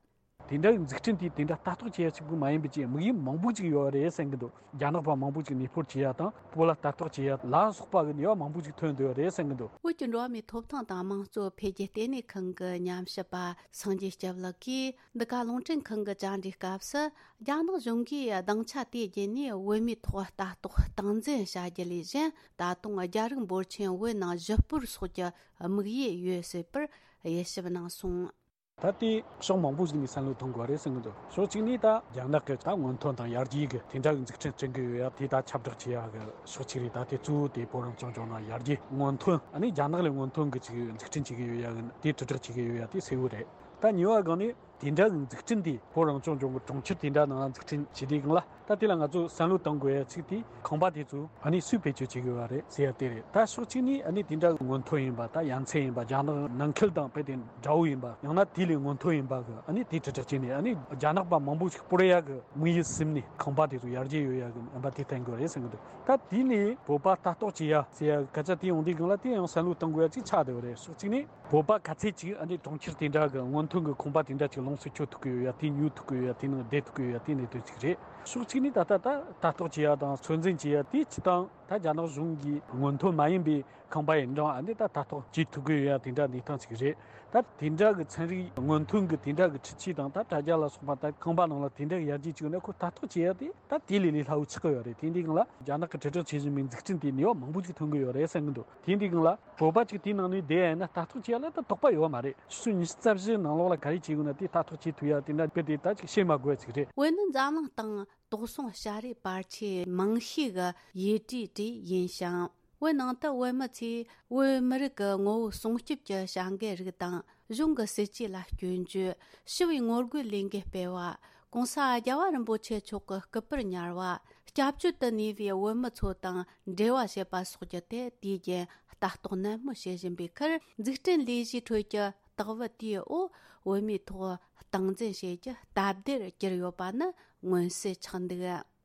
དེ་འདྲ་གི་འཛུགས་སྐྲུན་དེ་དེ་འདྲ་ལྟ་རྟོག་བྱེད་ཡ་གཅིག་པུ་མ་ཡིན་པའི་ཅིག་དམིགས་ཡུལ་མང་པོ་ཅིག་ཡོད་རེད་བསམ་གི་འདུག། རྒྱ་ནག་པ་མང་པོ་ཅིག་གནས་སྤོར་བྱེད་ཡ་དང་བོད་ལ་ལྟ་རྟོག་བྱེད་ཡ་ལ་སོགས་པ་གི་ནུས་པ་མང་པོ་ཅིག་ཐོན་འདུག་རེད་བསམ་གི་འདུག། བོད་ཀྱི་འགྲོ་བ་མིའི་ཐོབ་ཐང་དང་དམངས་གཙོ་འཕེལ་རྒྱས་ལྟེ་གནས་ཁང་གི་ཉམས་ཞིབ་པ་སངས་རྒྱས་སྐྱབས་ལགས་ཀྱིས། འདི་ག་རླུང་འཕྲིན་ཁང་གི་བཅར་འདྲིའི་སྐབས་སུ། རྒྱ་ནག་གཞུང་གིས་སྡིངས་ཆ་དེའི་བརྒྱུད་ནས་བོད་མིའི་ཐོག་ལྟ་རྟོག་སྟངས་འཛིན་བྱ་རྒྱུ་ལས་གཞན། ད་དུང་རྒྱ་རིགས་འབོར་ཆེན་བོད་ནང་གཞིས་སྤོར་སོགས་ཀྱི་དམིགས་ཡུལ་ཡོད་སྲིད་པར་དབྱེ་ཞིབ་གནང་སོང་། ད་ལྟའི་ཕྱོགས་མང་པོ་ཞིག་ནས་བསམ་བློ་གཏོང་དགོས་རེད་བསམ་གྱི་འདུག། ཕྱོགས་གཅིག་ནས་ད་རྒྱ་ནག་གི་ད་སྔོན་ཐོན་དང་ཡར་རྒྱས་ཀྱི་དེ་འདྲ་གི་འཛུགས་སྐྲུན་བསྐྲུན་གྱི་ཡོད་ཡ། དེ་ད་ཁྱབ་བསྒྲགས་བྱེད་ཡ་གི་ཕྱོགས་གཅིག་རེད། ད་དེ་གཙོ་བོ་དེ་བོད་རང་སྐྱོང་ལྗོངས་ནང་ཡར་རྒྱས་སྔོན་ཐོན། ཨ་ནི་རྒྱ་ནག་ལས་སྔོན་ཐོན་གྱི་ཅིག་འཛུགས་སྐྲུན་བྱེད་ཀྱི་ཡོད་ཡ་གི་དེ་དྲིལ་བསྒྲགས་བྱེད་ཀྱི་ཡོད་ཡ་དེ་གསལ་བོ་རེད། ད་གཉིས་པ་སྒང་ནས་དེ་འདྲ་གི་འཛུགས་སྐྲུན་དེ་བོད་རང་སྐྱོང་ལྗོངས་ཀྱི་གྲོང་ཁྱེར་དེ་འདྲ་ནང་འཛུགས་སྐྲུན་བྱེད་དུས་སྒང་ལ། ད་དེ་ལ་ང་ཚོས་བསམ་བློ་གཏོང་དགོས་ཡ་གཅིག་དེ་ཁང་པ་དེ་ཚོ་ཨ་ནི་སུས་བེད་སྤྱོད་བྱེད་དགོས་པ་རེད་ཟེར་ཡ་དེ་རེད། ད་ཕྱོགས་གཅིག་ནས་ཨ་ནི་དེ་འདྲ་སྔོན་ཐོན་ཡིན་པ། ད་ཡ་མཚན་ཡིན་པ། རྒྱ་ནག་ནང་ཁུལ་དང་དཔེ་དེ་འདྲ་བོ་ཡིན་པ། ཡང་ན་དེ་ལས་སྔོན་ཐོན་ཡིན་པ་གི་ཨ་ནི་དེ་དྲིལ་བསྒྲགས་བྱས་ནས། ཨ་ནི་རྒྱ་ནག་པ་མང་པོ་ཞིག་སྤོར་ཡ་གི་དམིགས་ཡུལ་ཟིན་ནས་ཁང་པ་དེ་ཚོ་ཡར་རྒྱས་ཡོང་ཡ་གི་ཡིན་པ་དེ་བསྟན་དགོས་རེད་བསམ་གི་འདུག། ད་དེ་ནས་བོད་པ་ལྟ་རྟོག་བྱེད་ཡ་ཟེར་ཡ་སྐད་ཆ་དེ་ཡོང་དུས་སྒང་ལ། དེ་ཡང་བསམ་བློ་གཏོང་དགོས་ཡ་གཅིག་ཆགས་བསྡད་པ་རེད། ཕྱོགས་གཅིག་ནས། བོད་པ་ག་ཚད་ཅིག་ཨ་ནི་གྲོང་ཁྱེར་དེ་འདྲ་གི་སྔོན་ཐོན་གྱི་ཁང་པ་དེ་འདྲ་ཅིག་ལོངས་སུ་སྤྱོད་ཐུབ་ཀྱི་ཡོད་ཡ། དེ་ཉོ་ཐུབ་ཀྱི་ཡོད་ཡ། དེ་ནང་བསྡད་ཐུབ་ཀྱི་ཡོད་ཡ། དེ་གནད་དོན་ཅིག་རེད། ཕྱོགས་གཅིག་ནས་ད་ལྟ་ད་ལྟ་རྟོག་བྱེད་ཡ་དང་ཚོད་འཛིན་བྱེད་ཡ་དེ་སྤྱིར་བཏང་ད་རྒྱ་ནག་གཞུང་གིས་སྔོན་ཐོན་མ་ཡིན་པའི་ཁང་པ་ཡིན་ཀྱང་། ཨ་ནི་ད་ལྟ་རྟོག་བྱེད་ཐུབ་ཀྱི་ཡོད་ཡ་དེ་འདྲ་གནས་སྟངས་ཅིག་རེད། ད་དེ་འདྲ་གི་ཚན་རིག་སྔོན་ཐོན་གྱི་དེ་འདྲ་གི་འཕྲུལ་ཆས་དང་ད་དྲ་རྒྱ་ལ་སོགས་པ། ད་ཁང་པ་ནང་ལ་དེ་འདྲ་གི་ཡར་རྒྱས་བྱུང་ན། ཁོ་ལྟ་རྟོག་བྱེད་ཡ་དེ་ད་དེ་ལས་ལས་སླ་བོ་ཆགས་ཀྱི་ཡོད་རེད། དེ་འདི་སྒང་ལ་རྒྱ་ནག་གི་དྲིལ་བསྒྲགས་བྱེད་བཞིན་པའི་འཛུགས་སྐྲུན་དེ་ནུས་པ་མང་པོ་ཞིག་ཐོན་གྱི་ཡོད་རེད་བསམ་གྱི་འདུག། དེ་འདི་སྒང་ལ་བོད་པ་ཅིག་དེའི་ནང་ནས་བསྡད་ཡ་ཡིན་ན་ལྟ་རྟོག་བྱེད་ཡ་ལ་ད་དོགས་པ་ཡོད་མ་རེད། ཆུ་ཚོད་ཉི་ཤུ་རྩ་བཞི་ནང་ལོགས་ལ་ག་རེ་བྱེད་དགོས་ན་དེ་ལྟ་རྟོག་བྱེད་ཐུབ་ཡ་དེ་འདྲ་དཔེ་དེ་ད་ཅིག་བཤད་མ་དགོས་ཡ་ཅིག་རེད། བོད་ནི་འཛམ་གླིང་སྟེང་དོགས་ཟོན་བྱ་རིགས་བར་ཆད་མང་ཤོས་ཀྱི་ཡུལ་གྲུའི་གྲས་ཡིན་ཞིང་། བོད་ནང་དུ་བོད་མི་ཚོས་བོད་མི་རིགས་ཀྱི་ངོ་བོ་སྲུང་སྐྱོབ་ཀྱི་བྱ་འགུལ་རིགས་དང་། གཞུང་གི་སྲིད་ཇུས་ལ་སྐྱོན་བརྗོད། ཞི་བའི་ངོ་རྒོལ་ལས་འགུལ་སྤེལ་བ། ྋགོང་ས་རྒྱལ་བ་རིན་པོ་ཆེ་མཆོག་གི་སྐུ་པར་ཉར་བ། སྐྱབས་བཅོལ་དུ་གནས་པའི་བོད་མི་ཚོ་དང་འབྲེལ་བ་བྱེད་པ་སོགས་ཀྱི་ཐད་དུས་རྒྱུན་ལྟ་རྟོག་ནན་མོ་བྱེད་བཞིན་པའི་ཁར། འཛུགས་སྐྲུན་ལས་གཞིའི་ཁྲོད་ཀྱི་ལྟ་བུ་དེའི་འོག་བོད་མིའི་ཐོག་སྟངས་འཛིན་བྱེད་རྒྱུ་སྟབས་བདེར་གྱུར་ཡོད་པ་ནི་མངོན་གསལ་ཆགས་འདུག།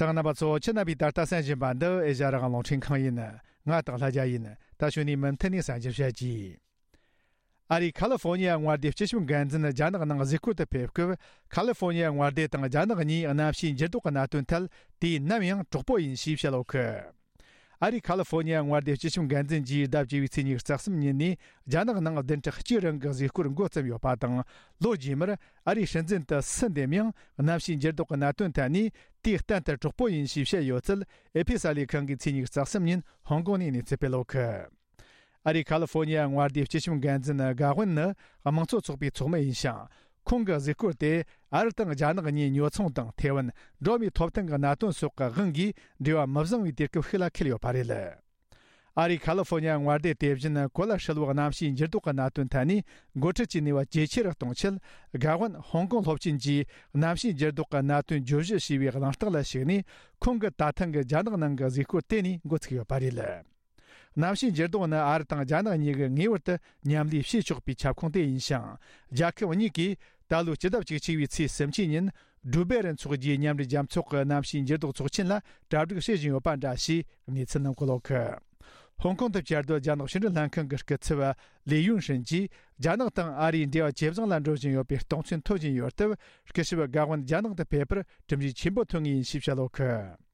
གསན་མཁན་རྣམ་པ་ཚོ། ཁྱེད་རྣམ་པས་ད་ལྟ་གསན་བཞིན་པ་འདི་ཨེ་ཤ་ཡ་རང་དབང་རླུང་འཕྲིན་ཁང་ཡིན། ང་སྟག་ལྷ་རྒྱལ་ཡིན། ད་གཞུག་ནས་མུ་མཐུད་ནས་གསན་རྒྱུ་བྱེད་ཀྱིས། ཨ་རིའི་ཁ་ལི་ཧྥོ་ནི་ཡ་མངའ་སྡེའི་སྤྱི་ཁྱབ་འགན་འཛིན་རྒྱ་ནག་ནང་གཟིགས་སྐོར་དུ་ཕེབས་སྐབས། ཁ་ལི་ཧྥོ་ནི་ཡ་མངའ་སྡེ་དང་རྒྱ་ནག་གཉིས་གནམ་གཤིས་འགྱུར་ལྡོག་གི་གནད་དོན་ཐད་དུས་ནམ་ཡང་གྲོགས་པོ་ཡིན་ཞེས་བཤད་ཡོད་གི། ཨ་རིའི་ཁ་ལི་ཧྥོ་ནི་ཡ་མངའ་སྡེའི་སྤྱི་ཁྱབ་འགན་འཛིན་གྱིས་ཟླ་བཅུ་པའི་ཚེས་ཉི་ཤུ་རྩ་གསུམ་ཉིན་ནས་རྒྱ་ནག་ནང་བདུན་ཕྲག་གཅིག་རིང་གི་གཟིགས་སྐོར་འགོ་བརྩམས་ཡོད་པ་དང་། ལོ་རྗེས་མར་ཨ་རིའི་སྲིད་འཛིན་དུ་སུ་འདེམས་ཡང་གནམ་གཤིས་འགྱུར་ལྡོག་གི་གནད་དོན་ཐད་ནས་དུས་གཏན་དུ་གྲོགས་པོ་ཡིན་ཞེས་བཤད་ཡོད་ཚུལ་ཨེ་ཕི་གསར་ལས་ཁང་གིས་ཚེས་ཉི་ཤུ་རྩ་གསུམ་ཉིན་ཧོང་ཀོང་ནས་གནས་ཚུལ་སྤེལ་ཡོད་གི། ཨ་རིའི་ཁ་ལི་ཧྥོ་ནི་ཡ་མངའ་སྡེའི་སྤྱི་ཁྱབ་འགན་འཛིན་གྷ་ཝུན་ནི་དམངས་གཙོ་ཚོགས་པའི་ཚོགས་མི་ཡིན་ཞིང་། ཁོང་གི་གཟིགས་སྐོར་དེ་ཨ་རི་དང་རྒྱ་ནག་གཉིས་ཉོ་ཚོང་དང་ཐའེ་ཝན། འགྲོ་བ་མིའི་ཐོབ་ཐང་གི་གནད་དོན་སོགས་ཀྱི་དབང་གིས་འབྲེལ་བ་མི་བཟང་བའི་དུས་སྐབས་ཤིག་ལ་འཁེལ་ཡོད་པ་རེད། ཨ་རིའི་ཁ་ལི་ཧྥོ་ནི་ཡ་མངའ་སྡེ་དེ་བཞིན་གོ་ལ་ཧྲིལ་བོའི་གནམ་གཤིས་འགྱུར་ལྡོག་གི་གནད་དོན་ཐད་ནས་འགོ་ཁྲིད་ཀྱི་ནུས་པ་ཇེ་ཆེ་རུ་གཏོང་ཆེད། གྷ་ཝུན་ཧོང་ཀོང་སློབ་ཆེན་གྱིས་གནམ་གཤིས་འགྱུར་ལྡོག་གི་གནད་དོན་བརྗོད་གཞི་ཞེས་པའི་གླེང་སྟེགས་ལ་ཞུགས་ནས། ཁོང་གི་ད་ཐེངས་ཀྱི་རྒྱ་ནག་ནང་གི་གཟིགས་སྐོར་དེ་ནས་འགོ་ཚུགས་ཡོད་པ་རེད། གནམ་གཤིས་འགྱུར་ལྡོག་ནི་ཨ་རི་དང་རྒྱ་ནག་གཉིས་ཀྱིས་ངེས་པར་དུ་མཉམ་ལས་བྱེད་ཆོག་པའི་ཁྱབ་ཁོངས་དེ་ཡིན་ཞིང་། རྒྱལ་ཁབ་གཉིས་ཀས་ད་ལོའི་སྤྱི་ཟླ་བཅུ་གཅིག་པའི་ཚེས་སུམ་ཅུ་ཉིན་ཌུ་སྦེ་རུ་འཚོགས་རྒྱུའི་མཉམ་འབྲེལ་རྒྱལ་ཚོགས་ཀྱི་གནམ་གཤིས་འགྱུར་ལྡོག་ཚོགས་ཆེན་ལ་གྲ་སྒྲིག་བྱེད་བཞིན་ཡོད་པ་འདྲ་ཞེས་གནས་ཚུལ་རྣམས་བཀོད་ཡོད་གི། ཧོང་ཀོང་དུ་བཅའ་སྡོད་རྒྱ་ནག་ཕྱི་འབྲེལ་ལྷན་ཁང་གི་སྐུ་ཚབ་ལི་ཡུན་ཧྲིན་གྱིས། རྒྱ་ནག་དང་ཨ་རིའི་འབྲེལ་བ་ཇེ་བཟང་ལ་འགྲོ་བཞིན་ཡོད་པའི་རྟོགས་མཚན་ཐོབ་བཞིན་ཡོད་སྟབས། སྐུ་ཞབས་གྷ་ཝུན་རྒྱ་ནག་ཏུ་ཕེབས་པར་གྲུབ་འབྲས་ཆེན་པོ་ཐོན་ངེས་ཡིན་ཞེས་བཤད་ཡོད་གི།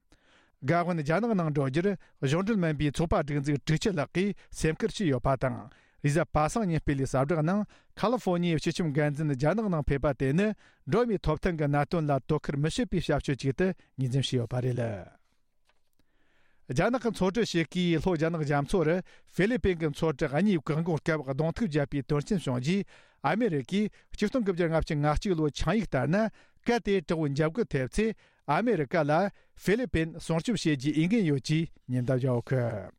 གྷ་ཝུན་རྒྱ་ནག་ནང་འགྲོ་རྒྱུར་གཞུང་འབྲེལ་མིན་པའི་ཚོགས་པ་སྒྲིག་འཛུགས་དྲུག་ཅུ་ལྷག་གིས་སེམས་ཁུར་བྱས་ཡོད་པ་དང་། རེས་གཟའ་པ་སངས་ཉིན་སྤེལ་བའི་གསལ་བསྒྲགས་ནང་། ཁ་ལི་ཧྥོ་ནི་ཡའི་སྤྱི་ཁྱབ་འགན་འཛིན་རྒྱ་ནག་ནང་ཕེབས་པ་དེ་ནི། འགྲོ་བ་མིའི་ཐོབ་ཐང་གི་གནད་དོན་ལ་དོ་ཁུར་མི་བྱེད་པའི་བྱ་སྤྱོད་ཅིག་ཏུ་ངོས་འཛིན་བྱས་ཡོད་པ་རེད། རྒྱ་ནག་གི་ཚོང་འབྲེལ་བྱེད་མཁས་ལྷོ་རྒྱ་ནག་རྒྱ་མཚོ་རུ་ཧྥི་ལི་པིན་གྱི་མཚོ་གྲུ་གཉིས་བཀག་འགོག་སྐབས་གདོང་ཐུག་བརྒྱབ་པའི་དོན་རྐྱེན་བྱུང་རྗེས། ཨ་མེ་རི་ཀས་ཆིག་སྟོང་དགུ་བརྒྱ་ལྔ་བཅུ་ང་གཅིག་ལོའི་ཆིངས་ཡིག་ལྟར་ན། གལ་ཏེ་དྲག་པོའི་འཇབ་རྒོལ་ཐེབས་ཚེ། ཨ་མེ་རི་ཀ་ལ་ཧྥི་ལི་པིན་སྲུང་སྐྱོབ་བྱེད་རྒྱུའི་འོས་འགན་ཡོད་ཅེས་ཉེན་བརྡ་བརྒྱབ་ཡོད་གི།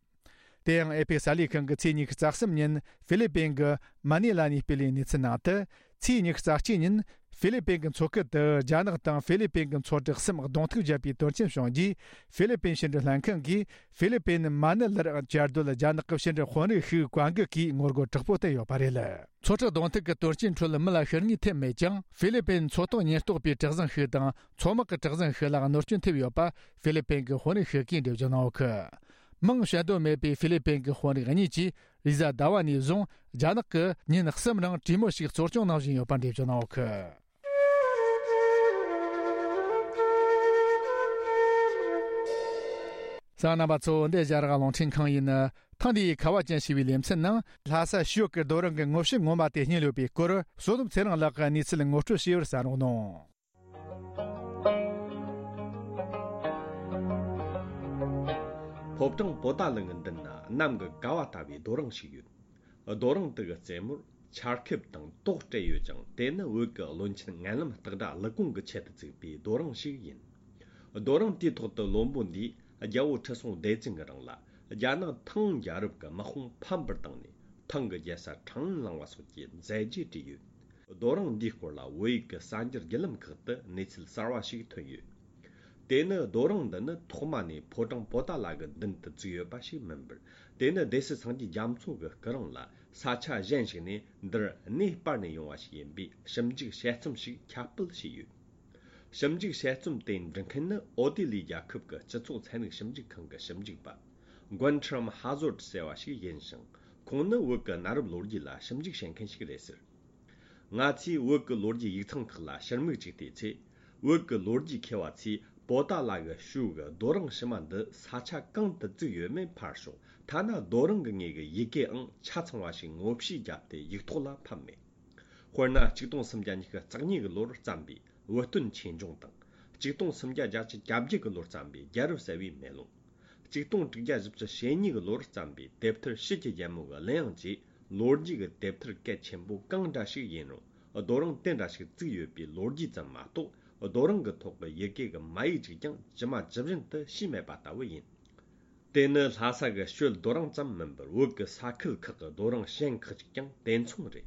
དེ་ཡང་ཨེ་ཕེ་གསར་ལས་ཁང་གིས་ཚེས་ཉི་ཤུ་རྩ་གསུམ་ཉིན་ཧྥི་ལི་པིན་གྱི་མ་ནི་ལ་ནས་སྤེལ་བའི་གནས་ཚུལ་ནང་དུ། ཚེས་ཉི་ཤུ་རྩ་གཅིག་ཉིན་ཧྥི་ལི་པིན་གྱི་མཚོ་ཁུལ་དུ་རྒྱ་ནག་དང་ཧྥི་ལི་པིན་གྱི་མཚོ་དྲག་གསུམ་གདོང་ཐུག་བརྒྱབ་པའི་དོན་རྐྱེན་བྱུང་རྗེས། ཧྥི་ལི་པིན་ཕྱི་འབྲེལ་ལྷན་ཁང་གིས་ཧྥི་ལི་པིན་མ་ནི་ལར་བཅའ་སྡོད་རྒྱ་ནག་གི་ཕྱི་འབྲེལ་དཔོན་རིགས་ཤིག་བཀའ་འགུག་གིས་ངོ་རྒོལ་དྲག་པོ་བསྟན་ཡོད་པ་རེད། མཚོ་དྲག་གདོང་ཐུག་གི་དོན་རྐྱེན་ཁྲོད་མི་ལ་ཤི་རྨས་ཐེབས་མེད་ཀྱང་། ཧྥི་ལི་པིན་མཚོ་ཐོག་ཉེན་རྟོག་པའི་གྲུ་གཟིངས་ཤིག་དང་མཚོ་དམག་གི་གྲུ་གཟིངས་ཤིག་ལ་གནོད་སྐྱོན་ཐེབས་ཡོད་པ་ཧྥི་ལི་པིན་གྱི་དཔོན་རིགས་ཤིག་གིས་འགྲེལ་བརྗོད་གནང་ཡོད་གི། མིང་བཤད་འདོད་མེད་པའི་ཧྥི་ལི་པིན་གྱི་དཔོན་རིགས་གཉིས་ཀྱིས་རེས་གཟའ་ཟླ་བ་ནས་བཟུང་རྒྱ་ནག་གིས་ཉིན་གསུམ་རིང་གྲོས་མོལ་ཞིག་གཙོ་སྐྱོང་གནང་བཞིན་ཡོད་པར་འགྲེལ་བརྗོད་གནང་ཡོད་གི། གསན་མཁན་རྣམ་པ་ཚོ། འདི་རྒྱ་རག་རླུང་འཕྲིན་ཁང་ཡིན། ཐེངས་འདིའི་ཁ་བ་ཅན་ཞེས་པའི་ལེ་ཚན་ནང་། ལྷ་ས་ཞོལ་གྱི་རྡོ་རིང་གི་ངོ་བཤུས་ངོ་མ་དེ་རྙེད་ཡོད་པའི་སྐོར། བསོད་ནམས་ཚེ་རིང་ལགས་ཀྱིས་གནས་ཚུལ་ངོ་སྤྲོད་བྱས་པར་གསན་རོགས་གནང་། ཕོ་བྲང་པོ་ཏཱ་ལ་གི་མདུན་ན་གནམ་གྱི་ཀ་བ་ལྟ་བུའི་རྡོ་རིང་ཞིག་ཡོད། རྡོ་རིང་དེ་གི་རྩེ་མོར་ཆར་ཁེབས་དང་ཏོག་སྤྲད་ཡོད་ཅིང་། དེ་ནི་བོད་ཀྱི་བློན་ཆེན་མངལ་ལམ་སྟག་སྒྲ་ཀླུ་ཀོང་གི་ཆེད་དུ་བཙུགས་པའི་རྡོ་རིང་ཞིག་ཡིན། རྡོ་རིང་དེའི་ཐོག་ཏུ་བློན་པོ་འདིས་རྒྱལ་པོ་ཁྲི་སྲོང་ལྡེ་བཙན་གྱི་རིང་ལ་རྒྱ་ནག་ཐང་རྒྱལ་རབས་ཀྱི་དམག་དཔུང་ཕམ་པར་བཏང་ནས། ཐང་གི་རྒྱལ་ས་ཁྲང་ཨན་བླངས་པ་སོགས་ཀྱི་མཛད་རྗེས་བྲིས་ཡོད། རྡོ་རིང་འདིའི་སྐོར་ལ་བོད་ཡིག་གི་གསར་འགྱུར་བརྒྱུད་ལམ་ཁག་ཏུ་གནས་ཚུལ་གསར་བ་ཞིག་ཐོན་ཡོད། དེ་ནི་རྡོ་རིང་འདི་ནི་ཐོག་མ་ནས་ཕོ་བྲང་པོ་ཏཱ་ལ་གི་མདུན་དུ་བཙུགས་ཡོད་པ་ཞིག་མིན་པར། དེ་ནི་སྡེ་སྲིད་སངས་རྒྱས་རྒྱ་མཚོ་གི་སྐུ་རིང་ལ་ས་ཆ་གཞན་ཞིག་ནས་འདིར་གནས་སྤར་ནས་ཡོང་བ་ཞིག་ཡིན་པའི་ཞིབ་འཇུག་དཔྱད་རྩོམ་ཞིག་ཁྱབ་སྤེལ་བྱས་ཡོད། ཞིབ་འཇུག་དཔྱད་རྩོམ་དེ་འབྲི་མཁན་ནི་ཨོ་སྟེ་ལི་རྒྱལ་ཁབ་ཀྱི་སྤྱི་ཚོགས་ཚན་རིག་ཞིབ་འཇུག་ཁང་གི་ཞིབ་འཇུག་པ་Guntram Hazold ཟེར་བ་ཞིག་ཡིན་ཞིང་། ཁོང་ནི་བོད་ཀྱི་གནའ་རབས་ལོ་རྒྱུས་ལ་ཞིབ་འཇུག་བྱེད་མཁན་ཞིག་རེད་ཟེར། ང་ཚོས་བོད་ཀྱི་ལོ་རྒྱུས་ཡིག་ཚང་ཁག་ལ་ཕྱིར་མིག་ཅིག་བལྟས་ཚེ། བོད་ཀྱི་ལོ་རྒྱུས་མཁས་པ་ཚོས་པོ་ཏཱ་ལ་གི་ཞོལ་གྱི་རྡོ་རིང་ཕྱི་མ་འདི་ས་ཆ་གང་དུ་བཙུགས་ཡོད་མེད་ཕར་ཞོག་ཐ་ན་རྡོ་རིང་གི་ངོས་ཀྱི་ཡི་གེའང་ཆ་ཚང་བ་ཞིག་ངོ་བཤུས་བརྒྱབ་སྟེ་ཡིག་ཐོག་ལ་ཕབ་མེད། དཔེར་ན། ཆིག་སྟོང་སུམ་བརྒྱ་ཉི་ཤུ་རྩ་གཉིས་ཀྱི་ལོར་བརྩམས་པའི་བོད་སྟོན་ཆོས་འབྱུང་དང་། ཆིག་སྟོང་སུམ་བརྒྱ་བརྒྱད་ཅུ་གྱ་བརྒྱད་ཀྱི་ལོར་བརྩམས་པའི་རྒྱལ་རབས་གསལ་བའི་མེ་ལོང་། ཆིག་སྟོང་དྲུག་བརྒྱ་བཞི་བཅུ་ཞེ་གཉིས་ཀྱི་ལོར་བརྩམས་པའི་དེབ་ཐེར་ཕྱིས་ཀྱི་རྒྱལ་མོ་གི་གླུ་དབྱངས་བཅས་ལོ་རྒྱུས་ཀྱི་དེབ་ཐེར་གལ་ཆེན་པོ་གང་འདྲ་ཞིག་ཡིན་རུང་། རྡོ་རིང་དེ་འདྲ་ཞིག་བཙུགས་ཡོད་པའི་ལོ་རྒྱུས་ཙམ་མ་གཏོགས། རྡོ་རིང་གི་ཐོག་གི་ཡི་གེ་གི་མ་ཡིག་ཅིག་ཀྱང་ཇི་མ་ཇི་བཞིན་དུ་ཤེས་མེད་པ་ལྟ་བུ་ཡིན། དེ་ནི་ལྷ་ས་གི་ཞོལ་རྡོ་རིང་ཙམ་མིན་པར། བོད་ཀྱི་ས་ཁུལ་ཁག་གི་རྡོ་རིང་གཞན་ཁག་ཅིག་ཀྱང་དེ་མཚུངས་རེད།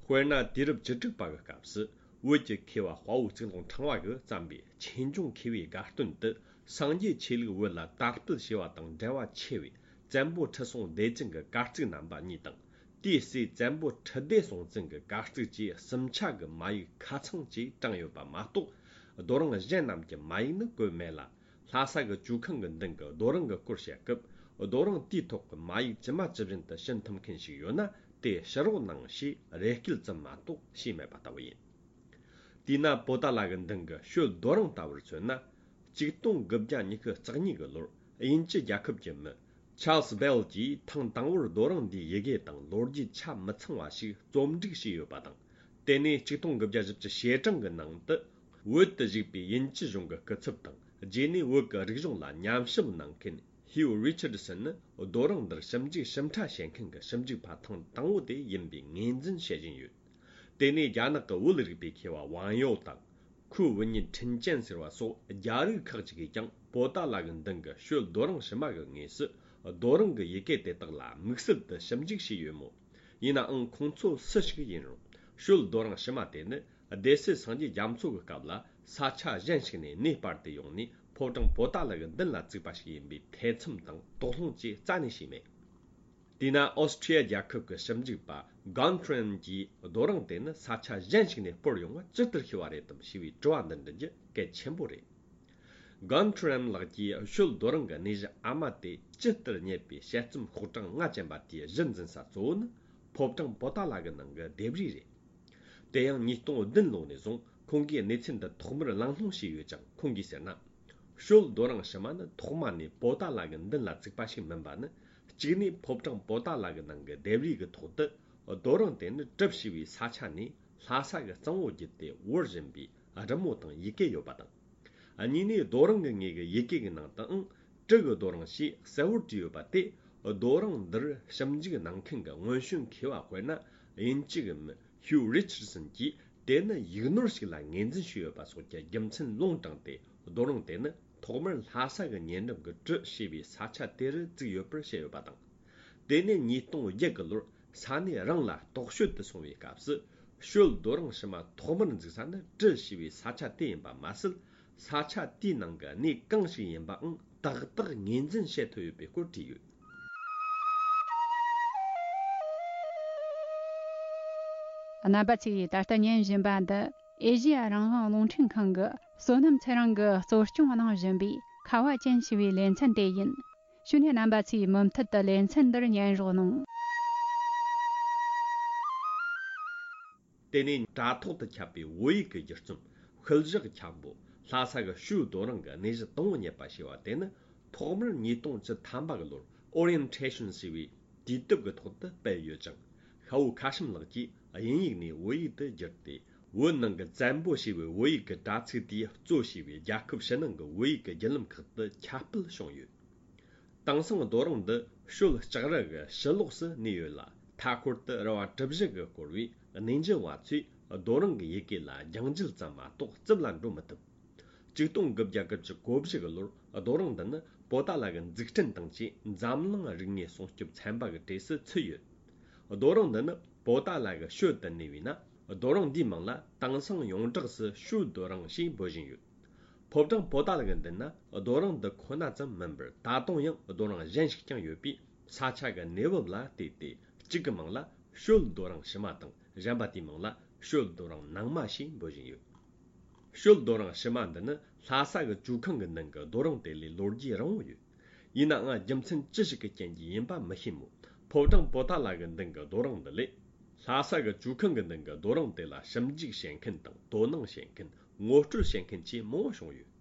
དཔེར་ན། དུས་རབས་བཅུ་དྲུག་པ་གི་སྐབས་སུ་བོད་ཀྱི་མཁས་པ་དཔའ་བོ་གཙུག་ལག་ཕྲེང་བ་གིས་བརྩམས་པའི་ཆོས་འབྱུང་མཁས་པའི་དགའ་སྟོན་དུ། སངས་རྒྱས་ཆོས་ལུགས་བོད་ལ་དར་སྤེལ་བྱས་པ་དང་འབྲེལ་བ་ཆེ་བའི་བཙན་པོ་ཁྲི་སྲོང་ལྡེ་བཙན་གྱི་གར་ཚིག་རྣམ་པ་གཉིས་དང་། དེའི་སྲས་བཙན་པོ་ཁྲི་ལྡེ་སྲོང་བཙན་གྱི་གར་ཚིག་བཅས་གསུམ་ཆ་གི་མ་ཡིག་ཁ་ཚང་བཅས་དྲངས་ཡོད་པ་མ་གཏོགས། རྡོ་རིང་གཞན་རྣམས་ཀྱི་མ་ཡིག་ནི་བཀོད་མེད་ལ། ལྷ་ས་གི་ཇོ་ཁང་གི་མདུན་གྱི་རྡོ་རིང་གི་སྐོར་བཤད་སྐབས། རྡོ་རིང་དེའི་ཐོག་གི་མ་ཡིག་ཇི་མ་ཇི་བཞིན་དུ་ཤེས་ཐུབ་མཁན་ཞིག་ཡོད་ན། དེ་ཕྱི་རོལ་ནང་ཞེས་རེ་སྐུལ་ཙམ་མ་གཏོགས་ཤེས་མེད་པ་ལྟ་བུ་ཡིན། དེས་ན། པོ་ཏཱ་ལ་གི་མདུན་གྱི་ཞོལ་རྡོ་རིང་ལྟ་བུར་མཚོན་ན། ཆིག་སྟོང་དགུ་བརྒྱ་ཉི་ཤུ་རྩ་གཉིས་ཀྱི་ལོར་དབྱིན་ཇི་རྒྱལ་ཁབ་ཀྱི་མི་Charles Bell གྱིས་ཐེངས་དང་པོར་རྡོ་རིང་འདིའི་ཡི་གེ་དང་ལོ་རྒྱུས་ཆ་མི་ཚང་བ་ཞིག་རྩོམ་སྒྲིག་བྱས་ཡོད་པ་དང་། དེ་ནས་ཆིག་སྟོང་དགུ་བརྒྱ་བཞི་བཅུ་ཞེ་གྲངས་ཀྱི་ནང་དུ། བོད་དུ་བཞུགས་པའི་དབྱིན་ཇི་གཞུང་གི་སྐུ་ཚབ་དང་། རྗེས་ནས་བོད་ཀྱི་རིག་གཞུང་ལ་ཉམས་ཞིབ་གནང་མཁན་Hugh Richardson ནི། རྡོ་རིང་འདིར་ཞིབ་འཇུག་ཞིབ་ཕྲ་བྱེད་མཁན་གྱི་ཞིབ་འཇུག་པ་ཐེངས་དང་པོ་དེ་ཡིན་པའི་ངོས་འཛིན་བྱེད་བཞིན་ཡོད། དེ་ནས་རྒྱ་ནག་གི་བོད་རིག་པའི་མཁས་པ་ཝང་ཡོ་དང་། ཁུའུ་ཝུན་ཉིན་ཁྲིན་ཅན་ཟེར་བ་སོགས་རྒྱ་རིགས་ཁག་ཅིག་གིས་ཀྱང་པོ་ཏཱ་ལ་གི་མདུན་གྱི་ཞོལ་རྡོ་རིང་ཕྱི་མ་གི་ངོས་སུ་རྡོ་རིང་གི་ཡི་གེ་དེ་དག་ལ་དམིགས་བསལ་དུ་ཞིབ་འཇུག་བྱས་ཡོད་མོད། ཡིན་ནའང་། ཁོང་ཚོ་སུ་ཞིག་ཡིན་རུང་། ཞོལ་རྡོ་རིང་ཕྱི་མ་དེ་ནི་སྡེ་སྲིད་སངས་རྒྱས་རྒྱ་མཚོ་གི་སྐབས་ལ་ས་ཆ་གཞན་ཞིག་ནས་གནས་སྤར་ཏེ་ཡོང་ནས་ཕོ་བྲང་པོ་ཏཱ་ལ་གི་མདུན་ལ་བཙུགས་པ་ཞིག་ཡིན་པའི་ཐེ་ཚོམ་དང་དོགས་སློང་བཅས་རྩ་ནས་བྱས་མེད། དེས་ན། ཨོ་སི་ཁྲི་ཡ་རྒྱལ་ཁབ་ཀྱི་ཞིབ་འཇུག་པ་Guntram གྱིས་རྡོ་རིང་དེ་ནི་ས་ཆ་གཞན་ཞིག་ནས་སྤོར་ཡོང་བ་ཇི་ལྟར་ཤེས་པ་རེད་དམ་ཞེས་པའི་དྲི་བ་འདི་འདྲི་རྒྱུ་གལ་ཆེན་པོ་རེད། Guntram ལགས་ཀྱིས་ཞོལ་རྡོ་རིང་གི་གནས་གཞི་ཨ་མ་དེ་ཇི་ལྟར་རྙེད་པའི་དཔྱད་རྩོམ་ཤོག་གྲངས་ལྔ་ཅན་པ་དེའི་གཞི་འཛིན་ས་གཙོ་བོ་ནི་ཕོ་བྲང་པོ་ཏཱ་ལ་གི་ནང་གི་ལྡེབས་རིས་རེད། དེ་ཡང་ཉིས་སྟོང་བདུན་ལོ་ནས་བཟུང་ཁོང་གིས་གནས་ཚུལ་འདི་ཐོག་མར་གླེང་སློང་བྱས་ཡོད་ཀྱང་། ཁོང་གིས་ཟེར་ན། ཞོལ་རྡོ་རིང་ཕྱི་མ་ནི་ཐོག་མ་ནས་པོ་ཏཱ་ལ་གི་མདུན་ལ་བཙུགས་པ་ཞིག་མིན་པ་ནི། གཅིག་ནས་ཕོ་བྲང་པོ་ཏཱ་ལ་གི་ནང་གི་ལྡེབས་རིས་ཀྱི་ཐོག་ཏུ་རྡོ་རིང་དེ་ནི་གྲུབ་ཞེས་པའི་ས་ཆ་ནས་ལྷ་ས་གི་གཙང་བོ་བརྒྱུད་དེ་བོར་བཞིན་པའི་རི་མོ་དང་ཡི་གེ་ཡོད་པ་དང་། གཉིས་ནས། རྡོ་རིང་གི་ངོས་ཀྱི་ཡི་གེ་གི་ནང་དུའང་གྲུ་གི་རྡོ་རིང་ཞེས་གསལ་བོར་བྲིས་ཡོད་པ་དེ། རྡོ་རིང་འདིར་ཞིབ་འཇུག་གནང་མཁན་གྱི་སྔོན་བྱོན་མཁས་པ་དཔེར་ན་དབྱིན་ཇི་གི་མི་Hugh Richardson གྱིས་ དེ་ནི་ཡིག་ནོར་ཞིག་ལ་ངོས་འཛིན་བྱས་ཡོད་པ་སོགས་ཀྱི་རྒྱུ་མཚན་ལུང་དྲངས་ཏེ། རྡོ་རིང་དེ་ནི་ཐོག་མར་ལྷ་ས་གི་ཉེ་འགྲམ་གྱི་གྲུ་ཞེས་པའི་ས་ཆ་དེ་རུ་བཙུགས་ཡོད་པར་བཤད་ཡོད་པ་དང་། དེ་ནས་ཉིས་སྟོང་བརྒྱད་གི་ལོར་ས་གནས་རང་ལ་རྟོག་དཔྱོད་དུ་སོང་བའི་སྐབས་སུ། ཞོལ་རྡོ་རིང་ཕྱི་མ་ཐོག་མར་འཛུགས་ས་ནི་གྲུ་ཞེས་པའི་ས་ཆ་དེ་ཡིན་པ་མ་ཟད། ས་ཆ་དེའི་ནང་གི་གནས་གང་ཞིག་ཡིན་པའང་ཏག་ཏག་ངོས་འཛིན་བྱེད་ཐུབ་ཡོད་པའི་སྐོར་བྲིས་ཡོད། རྣམ་པ་ཚོས་ད་ལྟ་ཉན་བཞིན་པ་འདི་ཨེ་ཤེ་ཡ་རང་དབང་རླུང་འཕྲིན་ཁང་གི་བསོད་ནམས་ཚེ་རིང་གིས་གཙོ་སྐྱོང་གནང་བཞིན་པའི་ཁ་བ་ཅན་ཞེས་པའི་ལེ་ཚན་དེ་ཡིན། བྱས་ནས་རྣམ་པ་ཚོས་མུ་མཐུད་དུ་ལེ་ཚན་འདིར་ཉན་རོགས་གནང་། དེ་ནས་དྲ་ཐོག་ཏུ་ཁྱབ་པའི་བོད་ཡིག་གི་བསྒྱུར་རྩོམ། ཤུལ་བཞག་འཁྱམ་པོ། ལྷ་ས་གི་ཞོལ་རྡོ་རིང་གི་གནས་གཞི་དང་པོ་རྙེད་པ་ཞེས་པ་དེ་ནི། ཐོག་མར་ཉིས་སྟོང་བཅུ་ཐམ་པ་གི་ལོར་Orientation ཞེས་པའི་དུས་དེབ་ཀྱི་ཐོག་ཏུ་སྤེལ་ཡོད་ཅིང་། ཤ་བོ་ཁ་ཤིམ་ལགས་ཀྱིས་དབྱིན་ཡིག་ནས་བོད་ཡིག་ཏུ་བསྒྱུར་ཏེ། བོད་ནང་གི་བཙན་པོ་ཞེས་པའི་བོད་ཡིག་གི་དྲ་ཚིགས་དེས་གཙོ་བྱས་པའི་རྒྱལ་ཁབ་ཕྱི་ནང་གི་བོད་ཡིག་གི་བརྒྱུད་ལམ་ཁག་ཏུ་ཁྱབ་སྤེལ་བྱུང་ཡོད། དེང་སང་རྡོ་རིང་འདི་ཞོལ་ལྕགས་རི་གི་ཕྱི་ལོགས་སུ་གནས་ཡོད་ལ། མཐའ་འཁོར་དུ་རི་བ་གྲུ་བཞི་གིས་བསྐོར་བས། གནས་འཇལ་བ་ཚོས་རྡོ་རིང་གི་ཡི་གེ་ལ་རྒྱང་འཇལ་ཙམ་མ་གཏོགས་རྩིབ་ལ་འགྲོ་མི་ཐུབ། ཆིག་སྟོང་དགུ་བརྒྱ་དགུ་བཅུ་གོ་བཞི་གི་ལོར་རྡོ་རིང་འདི་ནི་པོ་ཏཱ་ལ་གི་འཛུགས་སྐྲུན་དང་བཅས་འཛམ་གླིང་རིག་དངོས་སྲུང་སྐྱོབ་ཚན་པ་གི་གྲས་སུ་ཚུད་ཡོད། རྡོ་རིང་འདི་ནི་པོ་ཏཱ་ལ་གི་ཞོལ་དུ་གནས་པས་ན། རྡོ་རིང་འདིའི་མིང་ལ་དེང་སང་ཡོངས་གྲགས་སུ་ཞོལ་རྡོ་རིང་ཞེས་འབོད་བཞིན་ཡོད། ཕོ་བྲང་པོ་ཏཱ་ལ་གི་མདུན་ན་རྡོ་རིང་འདི་ཁོ་ན་ཙམ་མིན་པར། ད་དུང་ཡང་རྡོ་རིང་གཞན་ཞིག་ཀྱང་ཡོད་པས། ས་ཆ་གི་གནས་བབ་ལ་བལྟས་ཏེ། གཅིག་གི་མིང་ལ་ཞོལ་རྡོ་རིང་ཕྱི་མ་དང་། གཞན་པ་དེའི་མིང་ལ་ཞོལ་རྡོ་རིང་ནང་མ་ཞེས་འབོད་བཞིན་ཡོད། ཞོལ་རྡོ་རིང་ཕྱི་མ་འདི་ནི་ལྷ་ས་གི་ཇོ་ཁང་གི་མདུན་གྱི་རྡོ་རིང་དེ་ལས་ལོ་རྒྱུས་རིང་བོ་ཡོད། ཡིན་ནའང་རྒྱུ་མཚན་ཅི་ཞིག་གི་རྐྱེན་གྱིས་ཡིན་པ་མི་ཤེས་མོད། ཕོ་བྲང་པོ་ཏཱ་ལ་གི་མདུན་གྱི་རྡོ་རིང་འདི་ལས། ལྷ་ས་གི་ཇོ་ཁང་གི་མདུན་གྱི་རྡོ་རིང་དེ་ལ་ཞིབ་འཇུག་བྱེད་མཁན་དང་། དོ་སྣང་བྱེད་མཁན། ངོ་སྤྲོད་བྱེད་མཁན་བཅས་མང་བོ་བྱུང་ཡོད།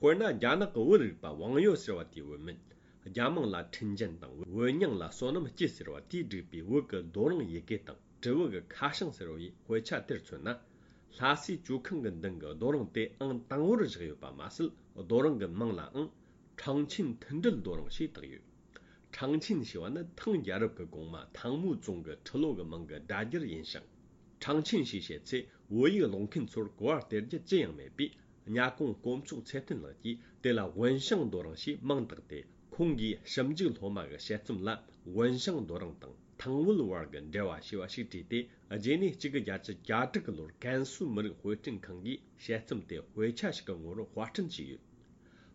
དཔེར་ན། རྒྱ་ནག་གི་བོད་རིག་པ་ཝང་ཡོ་ཟེར་བ་དེའི་བུད་མེད། རྒྱ་མིང་ལ་ཁྲིན་ཅན་དང་། བོད་མྱིང་ལ་བསོད་ནམས་སྐྱིད་ཟེར་བ་དེས་བསྒྲིགས་པའི་བོད་ཀྱི་རྡོ་རིང་ཡི་གེ་དང་། དྲིལ་བུ་གི་ཁ་བྱང་ཟེར་བའི་དཔེ་ཆ་དེར་མཚོན་ན། ལྷ་སའི་ཇོ་ཁང་གི་མདུན་གྱི་རྡོ་རིང་དེ་ཨང་དང་པོར་བཞག་ཡོད་པ་མ་ཟད། རྡོ་རིང་གི་མིང་ལའང་ཁྲང་ཆིན་མཐུན་སྒྲིལ་རྡོ་རིང་ཞེས་བཏགས་ཡོད། ཁྲང་ཆིན་ཞེས་པ་ནི་ཐང་རྒྱལ་རབས་ཀྱི་གོང་མ་ཐང་མུའུ་ཙུང་གི་ཁྲི་ལོ་གི་མིང་གི་སྒྲ་སྒྱུར་ཡིན་ཞིང་། ཁྲང་ཆིན་ཞེས་བཤད་ཚེ། བོད་ཡིག་ཀློག་མཁན་ཚོར་གོ་བ་སྟེར་རྒྱུ་ཅི་ཡང་མེད་པས། གཉའ་གོང་དཀོན་མཆོག་ཚེ་བརྟན་ལགས་ཀྱིས་དེ་ལ་ཝུན་ཤང་རྡོ་རིང་ཞེས་མིང་བཏགས་ཏེ། ཁོང་གིས་ཞིབ་འཇུག་སློབ་མ་གི་དཔྱད་རྩོམ་ལ་ཝུན་ཤང་རྡོ་རིང་དང་ཐང་ཝུལ་བར་གྱི་འབྲེལ་བ་ཞེས་པ་ཞིག་བྲིས་ཏེ། རྗེས་ནས་གཅིག་དགུ་བརྒྱད་ཅུ་གྱ་དྲུག་གི་ལོར་ཀན་སུའུ་མི་རིགས་དཔེ་སྐྲུན་ཁང་གིས་དཔྱད་རྩོམ་དེ་དཔེ་ཆ་ཞིག་གི་ངོ་བོར་དཔར་སྐྲུན་བྱས་ཡོད།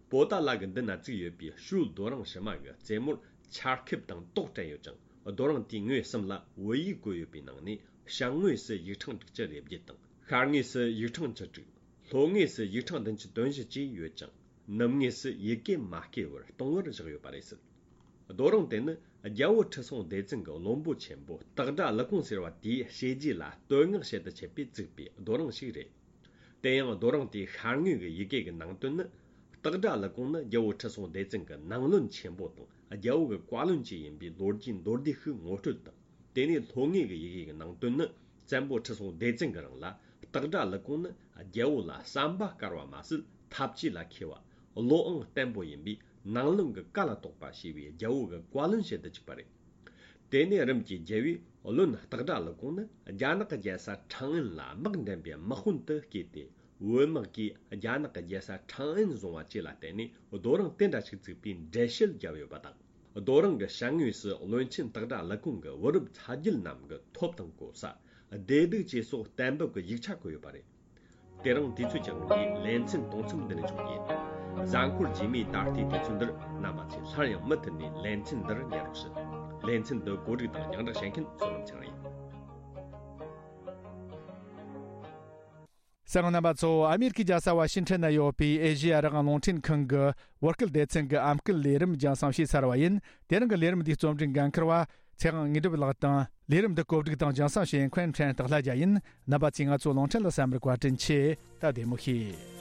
པོ་ཏཱ་ལ་གི་མདུན་ན་བཙུགས་ཡོད་པའི་ཞོལ་རྡོ་རིང་ཕྱི་མ་གི་རྩེ་མོར་ཆར་ཁེབས་དང་ཏོག་བྲན་ཡོད་ཅིང་། རྡོ་རིང་དེའི་ངོས་གསུམ་ལ་བོད་ཡིག་བཀོད་ཡོད་པའི་ནང་ནས། བྱང་ངོས་སུ་ཡིག་ཕྲེང་དྲུག་ཅུ་རེ་བརྒྱད་དང་། ཤར་ངོས་སུ་ཡིག་ཕྲེང་བཅུ་དྲུག་ལྷོ་ངོས་སུ་ཡིག་ཕྲེང་བདུན་ཅུ་དོན་བཞི་བཅས་ཡོད་ཅིང་། ནུབ་ངོས་སུ་ཡི་གེ་མ་བརྐོས་པར་སྟོང་བར་བཞག་ཡོད་པ་རེད་ཟེར། རྡོ་རིང་དེ་ནི་རྒྱལ་བོ་ཁྲི་སྲོང་ལྡེ་བཙན་གྱི་བློན་པོ་ཆེན་པོ་སྟག་སྒྲ་ཀླུ་ཀོང་ཟེར་བ་དེའི་བྱས་རྗེས་ལ་བསྟོད་བསྔགས་བྱེད་དུ་ཆས་པས་བཙུགས་པའི་རྡོ་རིང་ཞིག་རེད། དེ་ཡང་རྡོ་རིང་དེའི་ཤར་ངོས་ཀྱི་ཡི་གེ་གི་ནང་དོན་ནི། སྟག་སྒྲ་ཀླུ་ཀོང་ནི་རྒྱལ་བོ་ཁྲི་སྲོང་ལྡེ་བཙན་གྱི་ནང་བློན་ཆེན་པོ་དང་། རྒྱལ་བོ་གི་བཀའ་བློན་བཅས་ཡིན་པའི་ལོ་རྒྱུས་མདོར་བསྡུས་ཤིག་ངོ་སྤྲོད་དང་། དེ་ནས་ལྷོ་ངོས་ཀྱི་ཡི་གེ་གི་ནང་དོན་ནི། བཙན་པོ་ཁྲི་སྲོང་ལྡེ་བཙན་གྱི་རིང་ལ་སྟག་སྒྲ་ཀླུ་ཀོང་ནི་རྒྱལ་བོ་ལ་བསམ་པ་དཀར་བ་མ་ཟད། ཐབས་ཇུས་ལ་མཁས་པ། བློའང་བརྟན་པོ་ཡིན་པས། ནང་བློན་གྱི་བཀའ་ལ་གཏོགས་པ་ཞེས་པའི་རྒྱལ་བོ་གི་བཀའ་བློན་བྱེད་དུ་བཅུག་པ་རེད། དེ་ནས་རིམ་གྱིས་རྒྱལ་བོས་བློན་སྟག་སྒྲ་ཀླུ་ཀོང་ནི་རྒྱ་ནག་གི་རྒྱལ་ས་ཁྲང་ཨན་ལ་དམག་འདྲེན་པའི་དམག་དཔོན་དུ་བསྐོས་ཏེ། བོད་དམག་གིས་རྒྱ་ནག་གི་རྒྱལ་ས་ཁྲང་ཨན་བཟུང་བ་བཅས་ལ་བརྟེན་ནས། རྡོ་རིང་དེ་འདྲ་ཞིག་བཙུགས་པའི་འགྲེལ་བཤད་བརྒྱབ་ཡོད་པ་དང་། རྡོ་རིང་གི་ཞབས་ངོས་སུ་བློན་ཆེན་སྟག་སྒྲ་ཀླུ་ཀོང་གི་བུ་རབས་ཚ་རྒྱུད་རྣམས་ཀྱི་ཐོབ་དང་གོ་ས། བདེ་སྡུག་བཅས་སོགས་གཏན་འབེབས་ཀྱི་ཡིག་ཆ་བཀོད་ཡོད་པ་རེད། དེ་རིང་དུས་ཚོད་ཀྱི་དབང་གིས་ལེ་ཚན་གཏོང་མཚམས་འདི་ནས་འཇོག་རྒྱུ་ཡིན། གཟའ་འཁོར་རྗེས་མའི་ད་ལྟའི་དུས་ཚོད་འདིར་རྣམ་པ་ཚོས་སླར་ཡང་མུ་མཐུད་ནས་ལེ་ཚན་འདིར་ཉན་རོགས་ཞུ། ལེ་ཚན་འདི་གོ་སྒྲིག་དང་རྒྱང་བསྒྲགས་བྱེད་མཁན་བསོད་ནམས་ཚེ་རིང་ཡིན། གསན་མཁན་རྣམ་པ་ཚོ། ཨ་མེ་རི་ཁའི་རྒྱལ་ས་ཝ་ཤིང་ཊོན་ན་ཡོད་པའི་ཨེ་ཤེ་ཡ་རང་དབང་རླུང་འཕྲིན་ཁང་གི་བོད་སྐད་སྡེ་ཚན་གྱི་ཨམ་སྐད་ལས་རིམ་རྒྱང་སྲིང་བྱས་ཚར་བ་ཡིན། དེ་རིང་གི་ལས་རིམ་འདིའི་རྩོམ་སྒྲིག་འགན་འཁུར་བ་ཚེ་དབང་དངོས་གྲུབ་ལགས་དང་། ལས་རིམ་འདི་གོ་སྒྲིག་དང་རྒྱང་སྲིང་བྱེད་མཁན་ཁོན་ཁྲན་སྟག་ལྷ་རྒྱལ་ཡིན། རྣམ་པ་ཚོས་ང་ཚོའི་རླུང་འཕྲིན་ལ་གསན་པར་བཀའ་དྲིན་ཆེ། ད་བདེ་མོ་བྱོས།